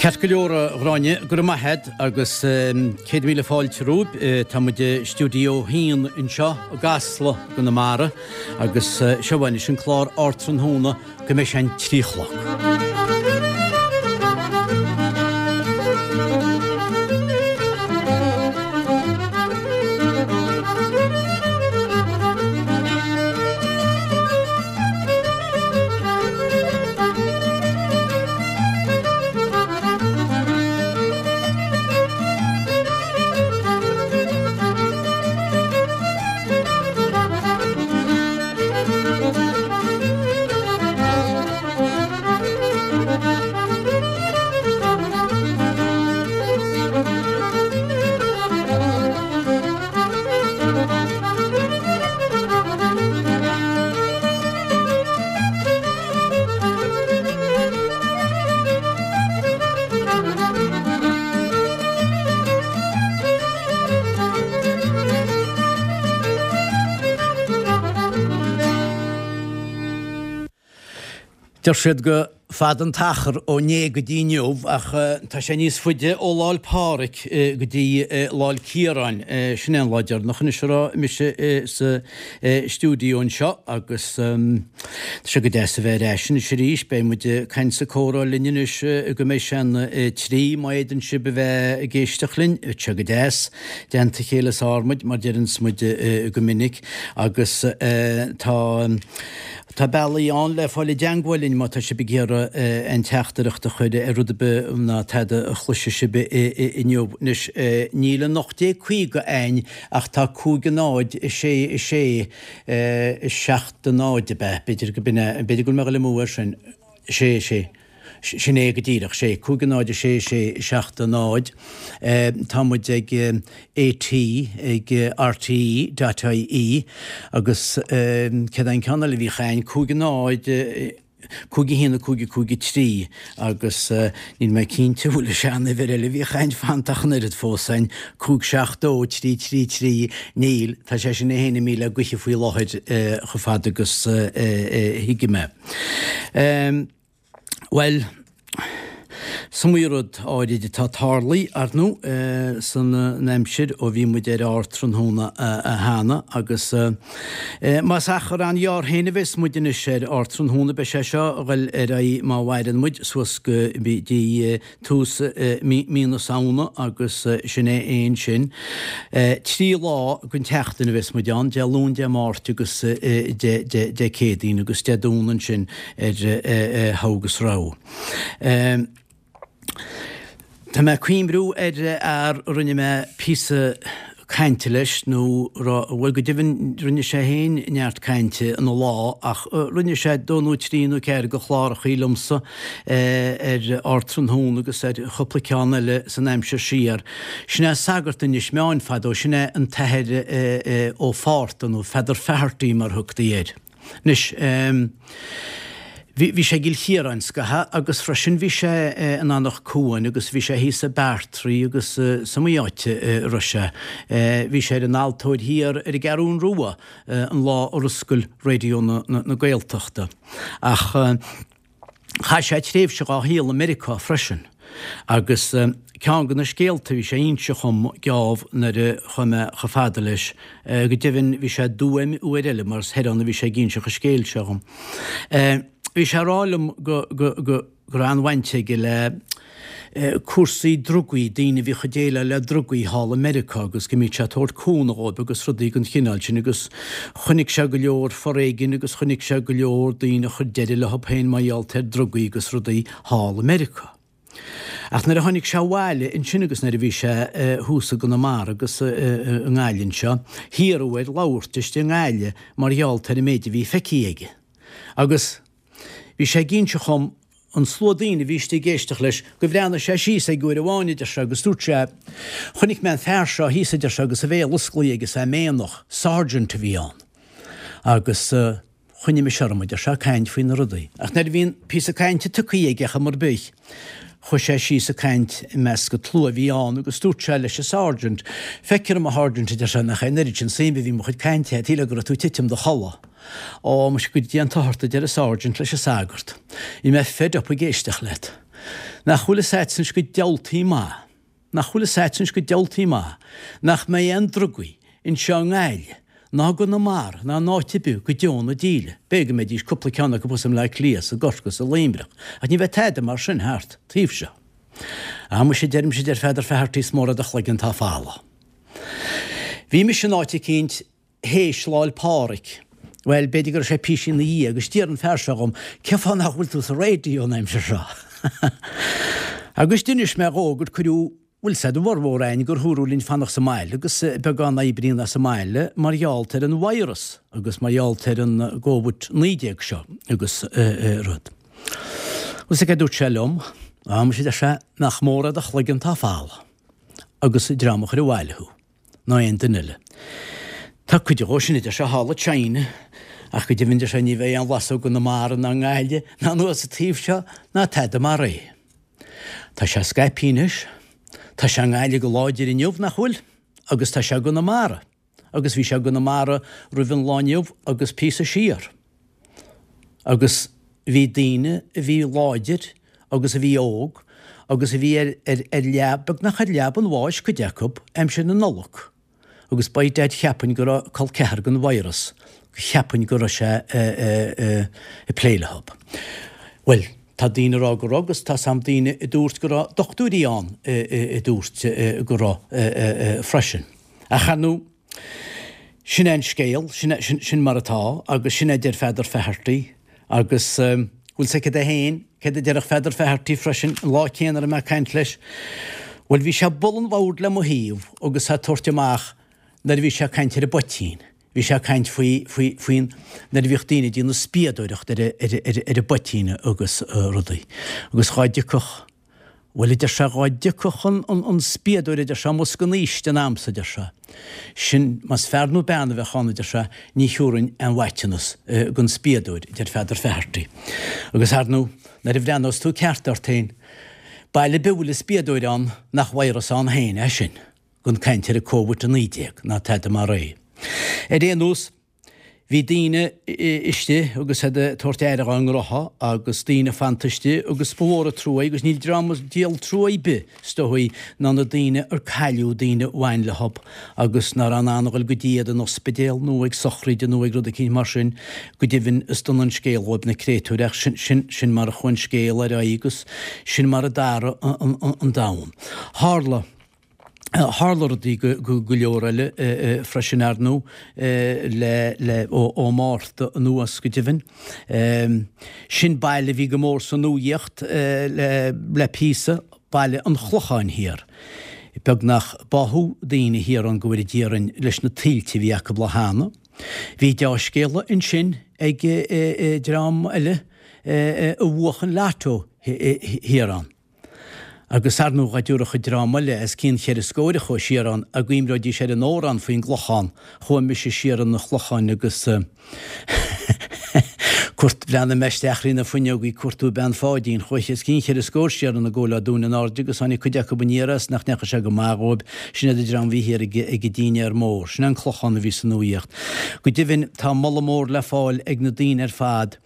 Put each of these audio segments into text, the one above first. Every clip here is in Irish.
Ceart go leor a Ghráinne, go raibh maith a't agus 100,000 fáilte romhaibh. Tá muid i stiúideo a haon anseo i gCasla i gConamara agus seo anois an clár Ardtráthnóna go mbeidh sé an 3 a chlog. Deir siad gur fada an t-achar ó inné go dtí inniu ach tá sé níos faide ó Lá 'le Pádraig go dtí Lá 'le Ciaráin. Sin é an lá deireanach anois a raibh mise sa stiúideo anseo agus tá sé go deas a bheith ar ais anois arís. Beidh muid ag caint 's ag comhrá linn anois go mbeidh sé an 3 má fhéadann sibh a bheith ag éisteacht linn. Tá sé go deas. I dteannta a chéile is fearr muid, mar deireanns muid go minic agus tá tá bealaí ann le fáil i dteangmháil linn má tá sibh ag iarraidh aon teachtaireacht a chur ar rud ar bith ná tada a chloisfidh sibh inniu. Anois níl an 1850 a'ainn Ach tá 5 0 6 6 7 0 ab ea? B'fhéidir go b'in é, b'fhéidir go bhfuil mé ag dul amú air sin. 6 6. Sin é go díreach, 6, 5 0 6 6 7 0. Tá muid ag AT, ag RTE dot IE agus céard é an ceann eile a bhíodh a'ainn? 5 0. 5 1 5 5 3 agus níl mé cinnte an bhfuil an seanuimhir eile a bhíodh a'ainn fanta ach an oiread fós a'ainn, 5 7 2 3 3 3, níl, tá sé sin é féin imithe le gaoithe faoi láthair chomh fada agus a thuigim é. Bhuel. Is iomaí rud áirid atá tarlaithe, ar ndóigh, san aimsir ó bhí muid ar Ardtráthnóna cheana agus más achar an-ghearr féin a bheas muid anois ar Ardtráthnóna, beidh sé seo a ghoil ar aghaidh má mhaireann muid suas go dtí tús mí na Samhna agus sin é fhéin sin. 3 lá den tseachtain a bheas muid ann, Dé Luain, Dé Máirt agus Dé Céadaoin agus Dé Domhnaigh ansin ar thogha agus rogha. Tá mé ag cuimhniú ar fhear a rinne mé píosa cainte leis, nó bhuel go deimhin rinne sé féin neart cainte ina lá ach rinne sé dó nó trí nó ceathair de chlárachaí liomsa ar Ardtráthnóna agus ar chúpla ceann eile san aimsir siar. Sin é sagart Inis Meáin fadó, sin é an tAthair Ó Fátharta nó Feadar Faherty mar thugtaí air. Anois, bhí, bhí sé i gCill Chiaráin scaitheamh agus freisin bhí sé in Anach Cuain agus bhí sé thíos i Beartraí agus is iomaí áit a raibh sé. Bhí sé ar an altóir thiar ar an gCeathrún Rua an lá ar oscail Raidió na, na Gaeltachta. Ach. Chaith sé tréimhse dhá shaol i Meiriceá freisin agus ceann de na scéalta a bhí sé a inse dhom geábh nuair a chuaigh mé chomh fada leis, go deimhin bhí sé i dTuaim uair eile mar is thoir ann a bhí sé ag inseacht an scéil seo dhom. Bhí sé ag rá liom go go go raibh an-bhaint aige le cúrsaí drugaí, daoine a bhíodh ag déileáil le drugaí thall i Meiriceá agus go mbíodh sé ag tabhairt cúnamh dhóibh agus rudaí den chineál sin agus chonaic sé go leor foréigin agus chonaic sé go leor daoine a chuir deireadh leo féin mar gheall ar drugaí agus rudaí thall i Meiriceá. Ach nuair a tháinig sé abhaile ansin agus nuair a bhí sé thuas i gConamara agus i nGaillimh anseo, hiarradh air labhairt istigh i nGaillimh mar gheall ar an méid a bhí feicthe aige. Agus. Bhí sé ag inse dhom, an slua daoine a bhí istigh ag éisteacht leis, go bhreathnaigh sé síos aige uair amháin, a deir sé, agus dúirt sé, Chonaic mé an fear seo thíos, a deir sé, agus a bhéal osclaithe aige is é méanach, sergeant a bhí ann. Agus choinnigh mise orm, a deir sé, ag caint faoi na rudaí. Ach nuair a bhí an píosa cainte tugtha aige ar chuma ar bith, chuaigh sé síos ag caint i measc an tslua a bhí ann agus dúirt sé leis an sergeant, Feictear dom, a sháirsint, a deir sé, nach é an oiread sin suime a bhí i mo chuid cainte, shílfeá go raibh tú ag titim i do chodladh. Ó, muise, go dté an t-othar ort, a deir an sergeant leis an sagart. Bhí mé fed up ag éisteacht leat. Nach bhfuil fhios a'dsa anois go diabhaltaí maith, nach bhfuil fhios a'dsa anois go diabhaltaí maith, nach mbeidh aon drugaí anseo i nGaillimh, ná i gConamara, ná in áit ar bith go deo na díle. B'fhéidir go mbeidís cúpla ceann acu thuas i mBleá Cliath, 's i gCorcaigh, 's i Luimneach, ach ní bheidh tada mar sin thart taobh seo. Á muise, deirimse, deir Pheadar Faherty, is mór é do chloigeann atá folamh. Bhí mise in áit eicínt théis Lá'l Pádraig, bhuel, b'fhéidir go raibh sé píosa ina dhiaidh, agus d'iarr an fear seo dhom, cén fáth nach bhfuil tú sa raidió an aimsir seo? Agus d'inis mé dhó gur cuireadh, bhfuil 's a'd, a bhformhór a'inn gur dhúradh linn fanacht sa mbaile agus beagán oibríonn as an mbaile mar gheall ar an virus agus mar gheall ar an gCóvid 19 seo agus rud. Agus cad a dúirt sé liom? Á, muise, deir sé, nach mór é do chloigeann atá folamh agus dream a chuir abhaile thú. ná aon duine eile. Tá cuid dhó sin, a deir sé, thall i China, ach go deimhin, deir sé, ní bheidh aon bhlas ó gConamara ná i nGaillimh ná anuas an taobh seo ná tada mar é. Tá sé scaipthe anois. Tá sé i nGaillimh go láidir inniu, nach bhfuil? Agus tá sé i gConamara. Agus bhí sé i gConamara roimh an lá inniu agus píosa siar. Agus bhí daoine a bhí láidir agus a bhí óg agus a bhí ar, ar, ar leab, beagnach ar leaba an bháis, cuid acu, aimsir na Nollag. Agus by dad cheapfainn go raibh col ceathar den virus, cheapfainn go raibh sé ag plé leo. Bhuel, tá daoine ag rá go raibh agus tá sam daoine a dúirt go raibh dochtúirí ann a dúirt go raibh freisin. Ach ar ndóigh, Sin é an scéal, sin, sin, sin mar atá agus sin é a deir Pheadar Faherty agus bhfuil 's agat é féin, céard a déarfadh Pheadar Faherty freisin an lá céanna a raibh mé ag caint leis? Bhuel bhí sé ag bualadh an bhoird le mo thaobh agus é ag tabhairt amach nuair a bhí sé ag caint ar an bpoitín, bhí sé ag caint faoi, faoi, faoin, nuair a bhíodh daoine ag déanamh spiadóireacht ar, ar, ar, ar an bpoitín agus rudaí agus dhá dtiocfadh Bhuel, a deir sé, dhá dtiocfadh an spiadóir, a deir sé, amuigh as an fhaoistin a'msa, a deir sé, sin, más fear nó bean a bheadh ann, a deir sé, ní thiúrfainn aon mhaiteanas don spiadóir, a deir Pheadar Faherty. Agus, ar ndú, nuair a bhreathnós tú ceart ort féin, baile ar bith a bhfuil an spiadóir ann, nach virus ann féin é sin, gan caint ar an Covid-19 ná tada mar é. Ar aon nós, Bhí daoine istigh agus iad ag tabhairt aire dhá ngnotha agus daoine fanta istigh agus ba mhór an trua é agus níl dream is díol trua ar bith is dóigh ná na daoine ar cailleadh daoine a bhain leo agus ná raibh in ann a dhul go dtí iad in ospidéal nó ag sochraide nó ag rud eicínt mar sin. Go deimhin is dona an scéal dhóibh na créatúir ach sin, sin, sin mar a chuaigh an scéal ar aghaidh agus sin mar a d'athraigh an, an, an domhan. Tharla. Tharla rudaí go leor eile freisin, ar ndú, le ó Márta anuas go deimhin. Sin baile a bhí go mór sa nuaíocht le píosa, Baile an Chlocháin Thiar. Beagnach báthadh daoine thiar ann go bhfóire Dia orainn leis na tuilte a bhí acu lá cheana. Bhí deá-scéala ansin ag dream eile a bhuach an lotto thiar ann. Agus ar ndóigh dá dtiúrfadh an dream eile os cionn cheithre scóir a chuaigh siar ann a gcuimreoidís ar an amhrán faoin gClochán, chuaigh mise siar 'un an Chlocháin agus cuairt, bhreathnaigh mé isteach thrí na fuinneogaí ag cuartú bean Pháidín, chuaigh os cionn cheithre scór siar ann i gcomhair lá Dúin in airde agus tháinig cuid acu aniar as nach ndeachaigh sé go maith dhóibh, sin iad an dream a bhí thiar ag ag an dinnéar mór, sin é an Clochán a bhí sa nuaíocht. Go deimhin tá moladh mór le fáil ag na daoine ar fad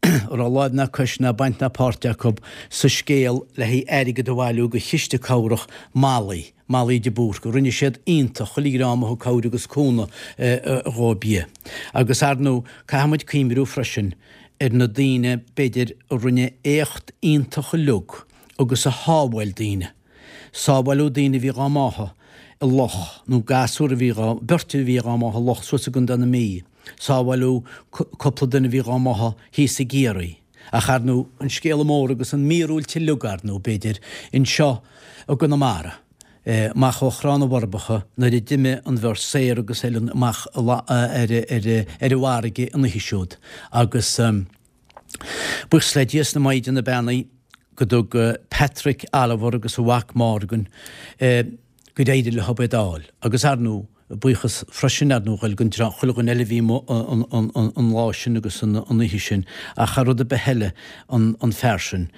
a raibh láimh ná cois ná baint ná páirt acu sa scéal le haghaidh airgead a bhailiú do chiste cabhrach Molly, Molly de Búrca. Rinne siad iontach, chuile dhream a thug cabhair agus cúnamh dhóibh. Agus ar ndú, caithfidh muid cuimhniú freisin ar na daoine, b'fhéidir, a rinne éacht iontach uilig agus a shábháil daoine. Sábháileadh daoine a bhí dhá mbáthadh i loch, nó gasúr a bhí dhá, beirt a bhí dhá mbáthadh i loch suas i gContae na Mí. Sábháileadh cúpla duine a bhí dhá mbáthadh thíos i gCiarraí. Ach ar ndú, an scéala mór agus an mhíorúilt uilig ar ndú, b'fhéidir, anseo i gConamara, amach ó Thrá na bhForbacha nuair a d'imigh an bheirt Saor agus Ellen amach ar an bhfarraige an oíche siúd agus buíochas le Dia is na Maighdeana Beannaí go dtug Patrick Oliver agus a mhac Morgan gur éirigh leo iad a fháil. Agus ar ndú, buíochas freisin ar ndú a dhul don chuile dhuine eile a bhí amuigh an lá sin agus an oíche sin ach thar rud ar bith eile an fear sin.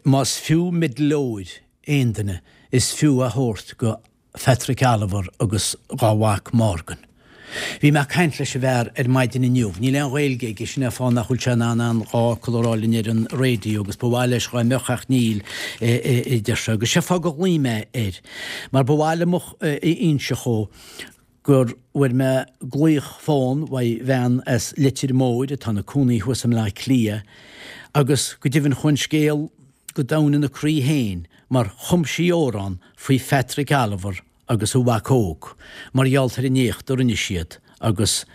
Más fiú meideal óir aon duine is fiú a thabhairt go Phatrick Oliver agus dhá mhac Morgan. Bhí mé ag caint leis an bhfear ar maidin inniu. Níl aon Ghaeilge aige, sin é an fáth nach bhfuil sé in ann aon dá fhocal a rá linn ar an raidió agus ba mhaith leis dhá mbeadh ach níl, a deir sé. Agus sé fáth gur ghlaoigh mé air, mar ba mhaith liom a inse dhó gur bhfuair mé glaoch fón uaidh bhean as Leitir Móir atá ina cónaí thuas i mBleá Cliath agus go deimhin chuaigh an scéal go domhain ina croí féin mar chum sí amhrán faoi Phatrick Oliver agus a mhac óg mar gheall ar an éacht a rinne siad agus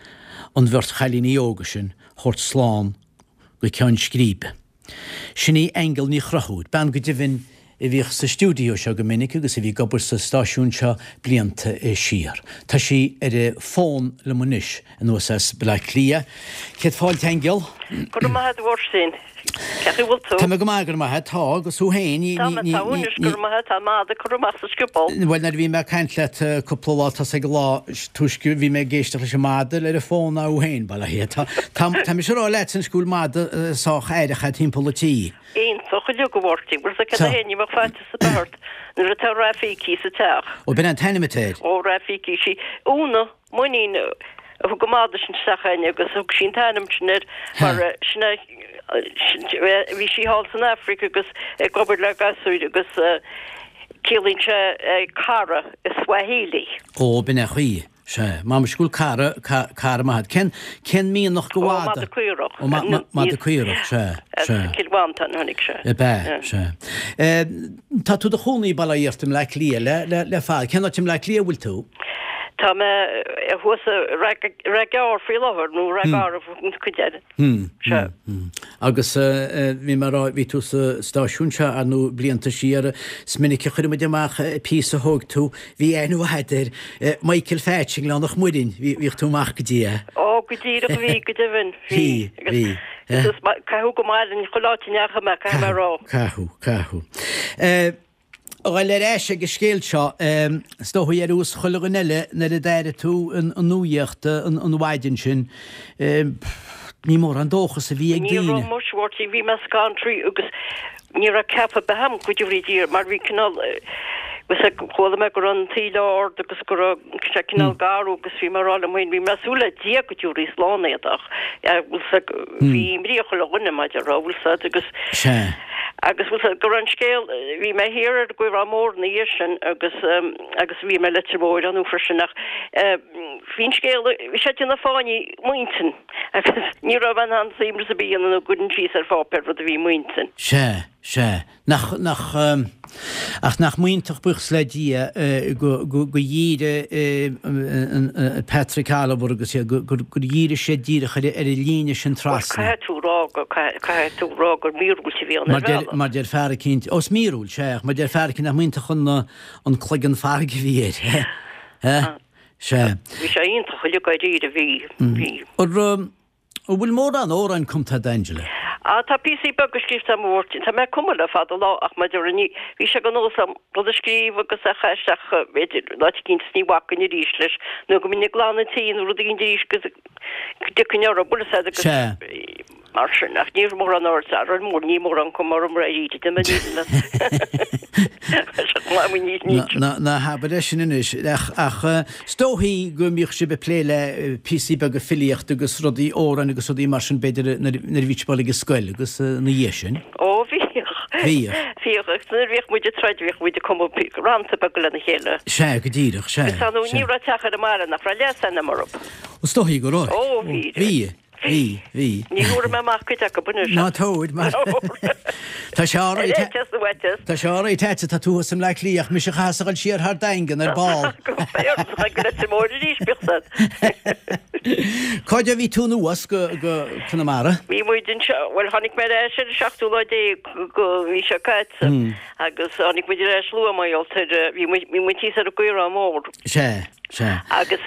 an bheirt chailíní óga sin thabhairt slán go ceann scríbe. Sin í Aingeal Ní Chonchúir, bean go deimhin a bhíodh sa stiúideo seo go minic agus a bhí ag obair sa stáisiún seo blianta siar. Tá sí ar an bhfón liom anois anuas as Baile Átha Cliath. Céad fáilte, Aingeal. Go raibh maith agat, a Mháirtín. Cén chaoi a bhfuil tú? Tá mé go maith, go raibh maith agat. Tá, agus thú féin? Tá mé, tá anois, go raibh maith agat. Tá an madadh curtha amach sa scioból. Bhuel, nuair a bhí mé ag caint leat cúpla lá tosaigh an lá túisce, bhí mé ag éisteacht leis an madadh ar an bhfón ná thú féin, bail ó Dhia. Tá, tá, tá mise ag rá leat anois go bhfuil madadh sách aireach agat timpeall an tí. Iontach uilig, a Mháirtín. Bhfuil 'fhios agat cad é ní bheadh faitíos ar bith ort nuair atá Rafiki sa teach. Ó, b'in an t-ainm atá air. Ó, Rafiki, sí Úna. Mainnín a thug an madadh sin isteach againn agus thug sí an t-ainm sin air mar sin é bhí sí thall san Afraic agus ag obair le gasúir agus ciallaíonn sé cara i Swahili. Ó, b'in é an chaoi. Sea. M'anam go bhfuil cara, cara maith agat. Cén, cén mianach de mhadadh? Ó, madadh caorach. Ó, madadh caorach, sea, sea. As Cill Mhantáin a tháinig sé. Ab ea, sea. Tá tú i do chónaí, bail ó Dhia ort, i mBleá Cliath le, le, le fada. Cén áit i mBleá Cliath a bhfuil tú? Tá mé thuas i Ráth Gearr faoi láthair, nó Ráth Garbh an chuid eile. Sea. Agus bhí mé ag rá, bhí tú sa stáisiún seo, ar ndóigh, blianta siar. Is minic a chuir muid amach píosa a thóg tú. Bhí aithne mhaith agat ar Michael Phatch i nGleann an Mhuirinn. Bhíodh tú amach go dtí é. Ó, go díreach, bhí, go deimhin. Bhí, bhí. Agus caitheadh go maith linn chuile áit a ndeachaigh mé, caithfidh mé a rá. Caitheadh, caitheadh. A ghoil ar ais ag an scéal seo, is dóigh ar nós chuile dhuine eile nuair a d'airigh tú an nuaíocht an mhaidin sin, ní mórán dóchas a bhí ag daoine. Ní raibh muis, a Mháirtín, bhí mé scanraithe agus ní raibh ceapadh ar bith agam go dtabharfaí Dia mar bhí cineál, chuala mé go raibh an taoille ard agus go raibh sé cineál garbh agus bhí mé ag rá liom féin, bhí mé ag súil le Dia go dtabharfaí slán iad ach bhí imní ar chuile dhuine mar a déarfá, bhfuil 'fhios agat agus. Sea. Agus bhfuil 'fhios agat go raibh an scéal, bhí mé thiar ar an gCaorán Mór ina dhiaidh sin agus agus bhí mé i Leitir Móir ar ndóigh freisin ach bhí an scéal, bhí sé ag déanamh fáinní i m'intinn agus ní raibh mé in ann suaimhneas ar bith a dhéanamh nó go gcuirfinn síos ar pháipéar rud a bhí i m'intinn. Sea, sea. Nach, nach, ach nach m'iontach buíochas le Dia go, go, go dhírigh Patrick Oliver agus iad, go, gur, gur dhírigh siad díreach ar, ar an líne sin trasna. Bhuel, caithfidh tú rá go, caithfidh tú rá gur míorúilt a bhí ann ar bhealach. Mar deir fear eicínt, ó is míorúilt, sea, ach mar deir fear eicínt nach m'iontach an, an cloigeann farraige a bhí air, he? Sea. Bhí sé iontach uilig dáiríre, bhí, bhí. An, An bhfuil mórán amhráin cumtha agat, Angela? Ah, tá píosaí beaga scríofa agam, a Mháirtín. Tá mé ag cumadh le fada lá ach mar a déarfá ní, bhí sé de nós agam rud a scríobh agus é a chaitheamh isteach, b'fhéidir, in áit eicínt is ní bhacfainn arís leis nó go mbeinn ag glanadh an tí nó rud eicínt arís agus go dtiocfainn orthu, bhfuil 'fhios agat agus Sea. mar sin ach ní raibh mórán aird ar mór, ní mórán cuma orm arís, de mo Ná habair é sin anois, ach is dóichí go mbíodh sibh ag plé le píosaí beaga filíochta agus rudaí, amhráin agus rudaí mar sin b'fhéidir nuair a bhí sibh ag dul ag an scoil agus ina dhiaidh sin. Ó bhíodh. Bhíodh. Bhíodh agus nuair a bhíodh muid ag troid bhíodh muid ag cumadh rannta beaga lena chéile. Sea, go díreach, sea. Agus ar ndóigh ní raibh teach ar an mbaile nach raibh leasainm orthu. Is dóichí go raibh. Ó bhí. Bhí. Bhí, bhí. Ní thabharfaidh mé amach cuid acu anois. Ná tabhair, mar tá sé á rá, tá sé á rá agat, tá tú thuas i mBleá Cliath, ach mise a chaithfeas a dhul siar thar Daingean ar ball. Go Leitir Móir arís, bíodh san. Cá fhad a bhí tú anuas go Conamara? Bhí muid anseo, bhuel tháinig mé ar ais ar an seachtú lá déag den mhí seo caite agus tháinig muid ar ais luath mar gheall ar, bhí muid thíos ar an gCaorán Mór. Sea, sea. Agus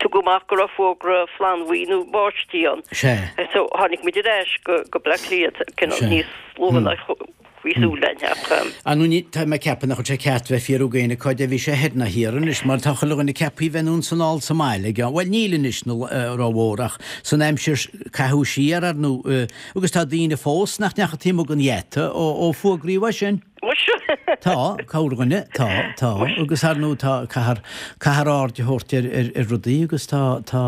Tugadh amach go raibh fógra flannbhuí nó báistí ann. Sea. So tháinig muid ar ais go go Bleá Cliath cineál níos luaithe ná bhí súil linn ach. Ar ndóigh tá mé ag ceapadh nach bhfuil sé ceart bheith ag fiafraí d'éinne cá fhad a bhí sé thoir ná thiar anois mar tá chuile dhuine ceaptha bheith anonn 's anall sa mbaile ag an, bhuel níl anois rómhór ach san aimsir caitheadh siar ar ndóigh agus tá daoine fós nach ndeachaigh taobh amuigh den gheata ó fuagraíodh é sin. Muise! Tá, corrdhuine, tá, tá. Agus ar ndóigh tá, caithfear, caithfear aird a thabhairt ar, ar, ar rudaí agus tá, tá,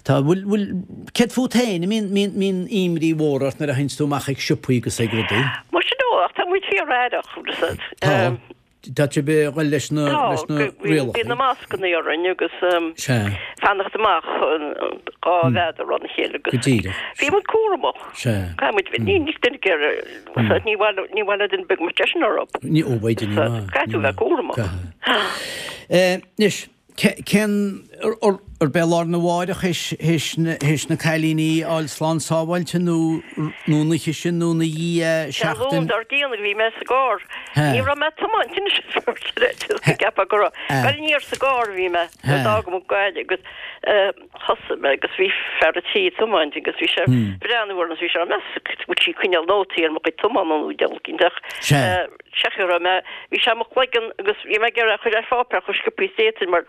tá, bhfuil, bhfuil, céard fút féin, an mbíonn, mbíonn, mbíonn imní mhór ort nuair a théanns tú amach ag siopaí agus ag rudaí? Muise no, ach tá muid fíor-aireach, Tá. Tá sibh ag dul leis na rialacha. Bíonn na mascanna orainn agus fanacht amach 2 mhéadar óna chéile agus Go díreach. Bhí muid cúramach. Sea. Caithfidh muid bheith, ní ní duine géar, ní mhaith ní mhaith le duine beag muid eisean orthu. Ní ó bheidh ní maith. Caithfidh tú bheith cúramach. Anois, Cén, arb é lá arna mháireach théis na cailíní a fháil slán sábháilte nó nó an oíche sin nó ina dhiaidh Sé an Luan seachtain? dár gcionn a bhí mé sa gcarr. Ní raibh mé ag tiomáint anois is ceapadh go raibh. Bhuel aniar sa gcarr a bhí mé nuair a d'fhág muid Gaillimh agus thosaigh mé agus bhí fear an tí ag tiomáint agus bhí sé ag breathnú orm agus bhí sé á meas go bhfuil sí ag coinneáil nótaí ar mo chuid tiomána nó deabhal cinnte ach Sea go raibh mé, bhí sé i mo chloigeann agus bhí mé ag iarraidh a chur ar pháipéar chomh sciobtha is d'fhéadfainn mar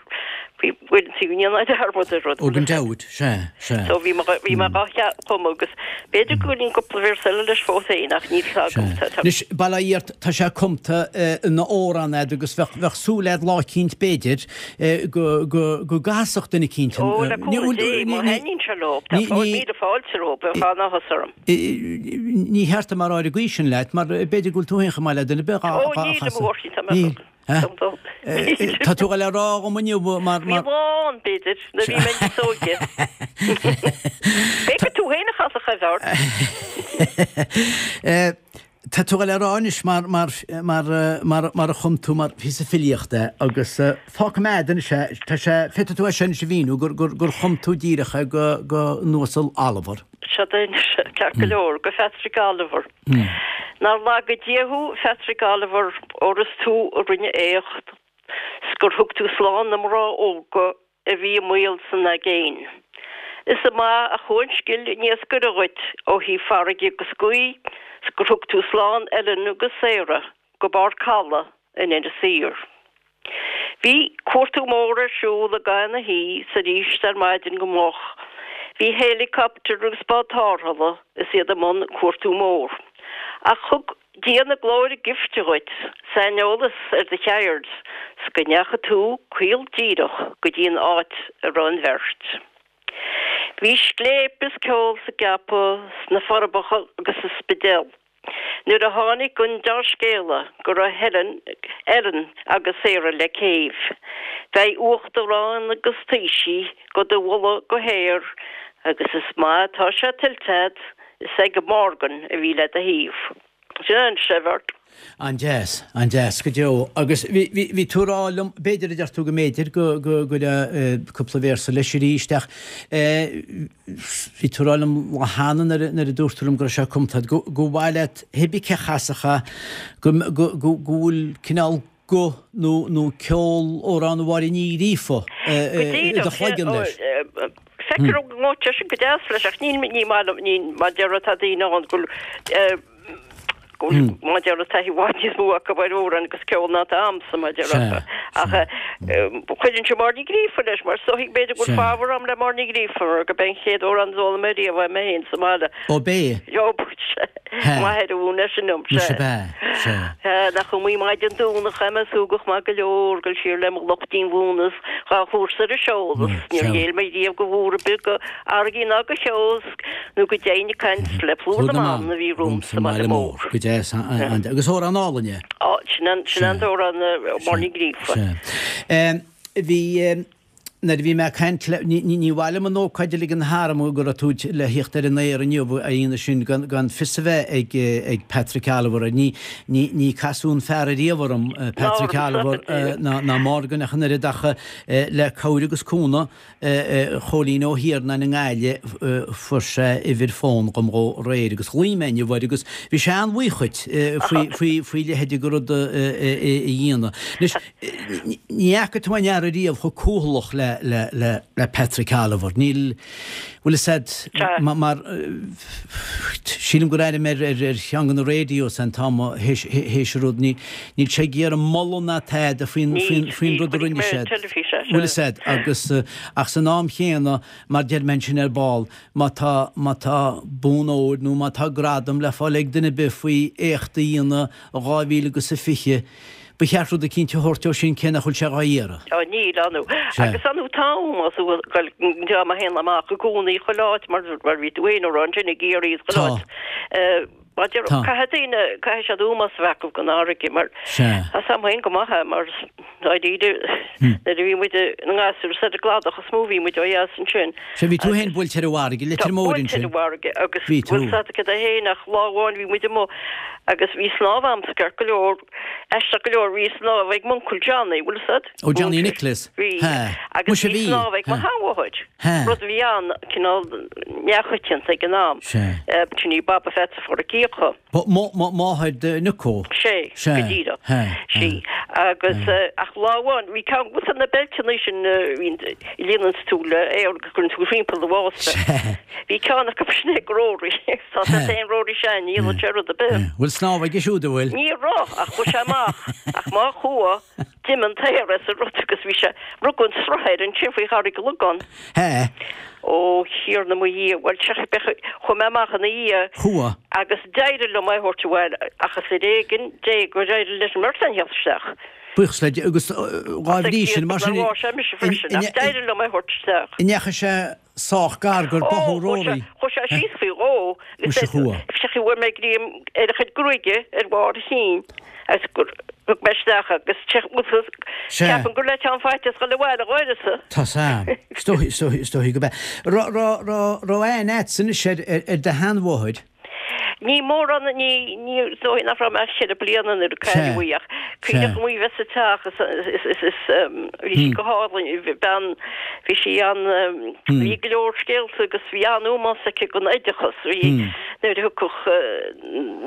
bhí uaireanta go ndéanfá dearmad ar rud. Ó gan dabht, sea, sea. So bhí mé, bhí mé dhá chumadh agus b'fhéidir go bhfuil cúpla véarsa eile leis fós féin ach níl fhios agam. Sea. Anois, bail ó Dhia ort, tá sé cumta ina amhrán a'd agus bheadh, bheadh súil a'd lá eicínt b'fhéidir go, go, go gcasfadh duine eicínt an, Ó, le cúnamh Dé, má thaitníonn sé leo, tá míle fáilte rompu, bheadh an-áthas orm. Ní cheart dom a rá ar an gcaoi sin leat, mar b'fhéidir go bhfuil tú féin chomh maith le duine ar bith dhá Ó, níl, chasadh. mo mhórthí, tá mé Níl, chomh. eh? Dom dó. Tá tú ag dul a rá dhom inniu mar, Bhí mar. lá ann, b'fhéidir, nuair a bhí mé níos óige. B'fhéidir tú féin a chasfadh é, Bheart. Tá tú ag dul a rá anois mar, mar, mar, mar, mar a chum tú mar phíosa filíochta é agus fágfaidh mé a'd anois é, tá sé, féadfaidh tú é sin anois a mhíniú gur, gur, gur chum tú díreach é go, go an Uasal Oliver. Seo duit anois, ceart go leor, go Phatrick Oliver. Nár laga Dia thú, Phatrick Oliver, óir is tú a rinne éacht 's gur thug tú slán na mná óga a bhí i mbaol san aigéin. Is maith a chuaigh an scil iascaire dhuit ó thaobh farraige agus gaoth 's gur thug tú slán Ellen agus Sarah go barr caladh in Inis Oírr. Bhí cuartú mór ar siúl i gcaitheamh na hoíche 's arís ar maidin go moch. Bhí héileacaptar agus bád tarrthála is iad i mbun cuartú mór. Ach thug Dia na glóire gifte dhuit, saineolas ar do cheird, 's go ndeachaigh tú caol díreach go dtí an áit a raibh an bheirt. Bhí scléip is ceol sa gCeapadh, sna Forbacha agus sa Spidéal nuair a tháinig an deá-scéala go raibh Helen, Ellen agus Sarah le céibh. Beidh uachtaráin agus taoisigh go do mholadh go haer agus is maith atá sé tuillte a'd Is ag Morgan a bhí le do thaobh. Sin é an Sefert. An-deas, an-deas go deo. Agus bhí, bhí, bhí tú ag rá liom, b'fhéidir a deir tú go mb'fhéidir go, go gcuirfeá cúpla véarsa leis arís ach eh bhí tú ag rá liom lá cheana nuair a, nuair a dúirt tú liom go raibh sé cumtha agat, go, go mhaith leat cibé cé a chasfadh é, go, go, go, go bhfuil cineál guth nó nó ceol Amhrán Mháire Ní Ghríofa i do chloigeann leis. Feictear go ngabhadh sé sin go deas leis ach níl ní maith liom ní mar deir tá daoine ann go bhfuil go bhfuil mar deir taithí i bhfad níos mó acu ar amhráin agus ceol ná atá a'msa mar deir ach cuireann sé Máire Ní Ghríofa leis mar is dóigh b'fhéidir go bhfuil fabhar a'm le Máire Ní Ghríofa mar go b'é an chéad amhrán a d'fhoghlaim mé riamh uaim féin sa mbaile. Ó b'é? Ó M'athair a mhúin é sin dom, Muise sea. B'ea, sea. Sea, nach iomaí maidin Domhnach a raibh mé súgach maith go leor, dul siar le mo lucht díomhaoin is dhá thabhairt ar an seol is níor ghéill mé riamh go bhúr ar bith, go fharraigí ná go cheo 's nó go deimhin ag caint le plúr na mban a bhí romham sa mbaile mór. Go deas, agus amhrán álainn é. Á, sin an, sin an t-amhrán, Máire Ní Ghríofa. Sea. Bhí. Nuair a bhí mé ag caint le, ní, ní mhaith liom an ócáid a ligean tharam go raibh tú le thíocht ar an aer inniu, a Aoine sin, gan, gan fios a bheith ag, ag Patrick Oliver. Ní, ní, ní casadh an fear ariamh orm, Patrick Oliver, ná, ná Morgan ach an oiread ach le cabhair agus cúnamh Chóilín Ó hIarnáin i nGaillimh fuair sé uimhir fón dhom dhó aréir agus ghlaoigh mé inniu air agus bhí sé an-bhuíoch dhuit faoi, faoi, faoi leithéid de rud a dhéanamh. Anois, Ní fhaca tú aon fhear ariamh chomh cúthalach le. le, le, le, le Patrick Oliver. Níl, bhfuil fhios a'd, mar, sílim gur airigh mé ar, ar, ar cheann de na radios an t-am théis, théis an rud, ní, níl sé ag iarraidh moladh ná tada faoin, faoin, faoin rud a rinne siad. Bhfuil fhios a'd, agus, ach san am chéanna, mar deir mé ansin ar ball, má tá, má tá bonn óir nó má tá gradam le fáil ag duine ar bith faoi éacht a dhéanamh i 2000 agus a 20, ba cheart rud eicínt a thabhairt dó sin cé nach bhfuil sé dhá iarraidh. Á níl, ar ndú. Agus ar ndú tá ómós ag goil dream a théann amach i gcónaí chuile áit mar mar bhí tú féin a rá ansin i gCiarraí is chuile áit. Mar deir, caithfidh daoine, caithfidh siad ómós a bheith acu don fharraige mar tá 's a'm féin go maith é mar dáiríre nuair a bhí muid ina ngasúir is ar an gcladach is mó a bhí muid ó dheas ansin. Sea, bhí tú féin buailte ar an bhfarraige, Leitir Móir ansin. Buailte ar an bhfarraige agus bhí tú. Bhfuil 's a'd cad é féin ach lá amháin bhí muid amuigh agus bhí snámh a'msa ceart go leor, aisteach go leor bhí snámh ag m'uncail Johnny, bhfuil 's a'd? Ó Johnny Nicholas. Bhí. Agus bhí snámh ag mo sheanmháthair. Rud a bhí an, cineál neamhchoitianta ag an am. Sin í Baba Pheatsa Pháraic Fhiacha. Máthair do Nico. Sé, go díreach. Sí. Agus, ach lá amháin, bhí ceann de na beilteanna sin a bhíonn, a líonanns tú le aer agus cuireann tú thimpeall do bhásta. Bhí ceann acu sin ag Rory. Tá sé féin Rory Sean, ní dhéanann sé rud ar bith. Bhfuil snámh aige siúd, an bhfuil? Ní raibh, ach chuaigh sé amach. Ach má chuaigh, D'imigh an t-aer as an rud agus bhí sé, rugadh an sruth air ansin faoi Charraig Lugán. Hea. Ó Thiarna mo Dhia, bhuel, chuaigh mé amach ina dhiaidh. Chuaigh. Agus d'éirigh liom é a thabhairt abhaile ach is ar éigean Dé gur éirigh leis an mbeirt againn a theacht isteach. Buíochas le Dia, agus dhá bhrí sin, mar sin. Ach sé mise freisin, ach d'éirigh liom é a thabhairt isteach. An ndeachaigh sé sách gar gur báthadh Rory. Chuaigh sé síos faoi dhó. Muise chuaigh. Sé bhfuair mé greim ar a chuid gruaige ar bharr a chinn agus gur thug mé isteach agus ceapaim gur le teann faitíos dhul abhaile dh'uireasa. Tá's a'm. Is dóichí, is dóichí, is dóichí go b'ea. Raibh, raibh, raibh, raibh aithne a'dsa anois ar, ar do sheanmháthair? Ní mórán, ní, ní, is dóigh nach raibh mé ach cheithre bliana nuair a cailleadh í ach cuimhneach liom í bheith sa teach is, is, is, is, bhí sí go hálainn, bhí bean, bhí sí an, bhí go leor scéalta agus bhí an-ómós aici don oideachas, bhí, nuair a thiocfadh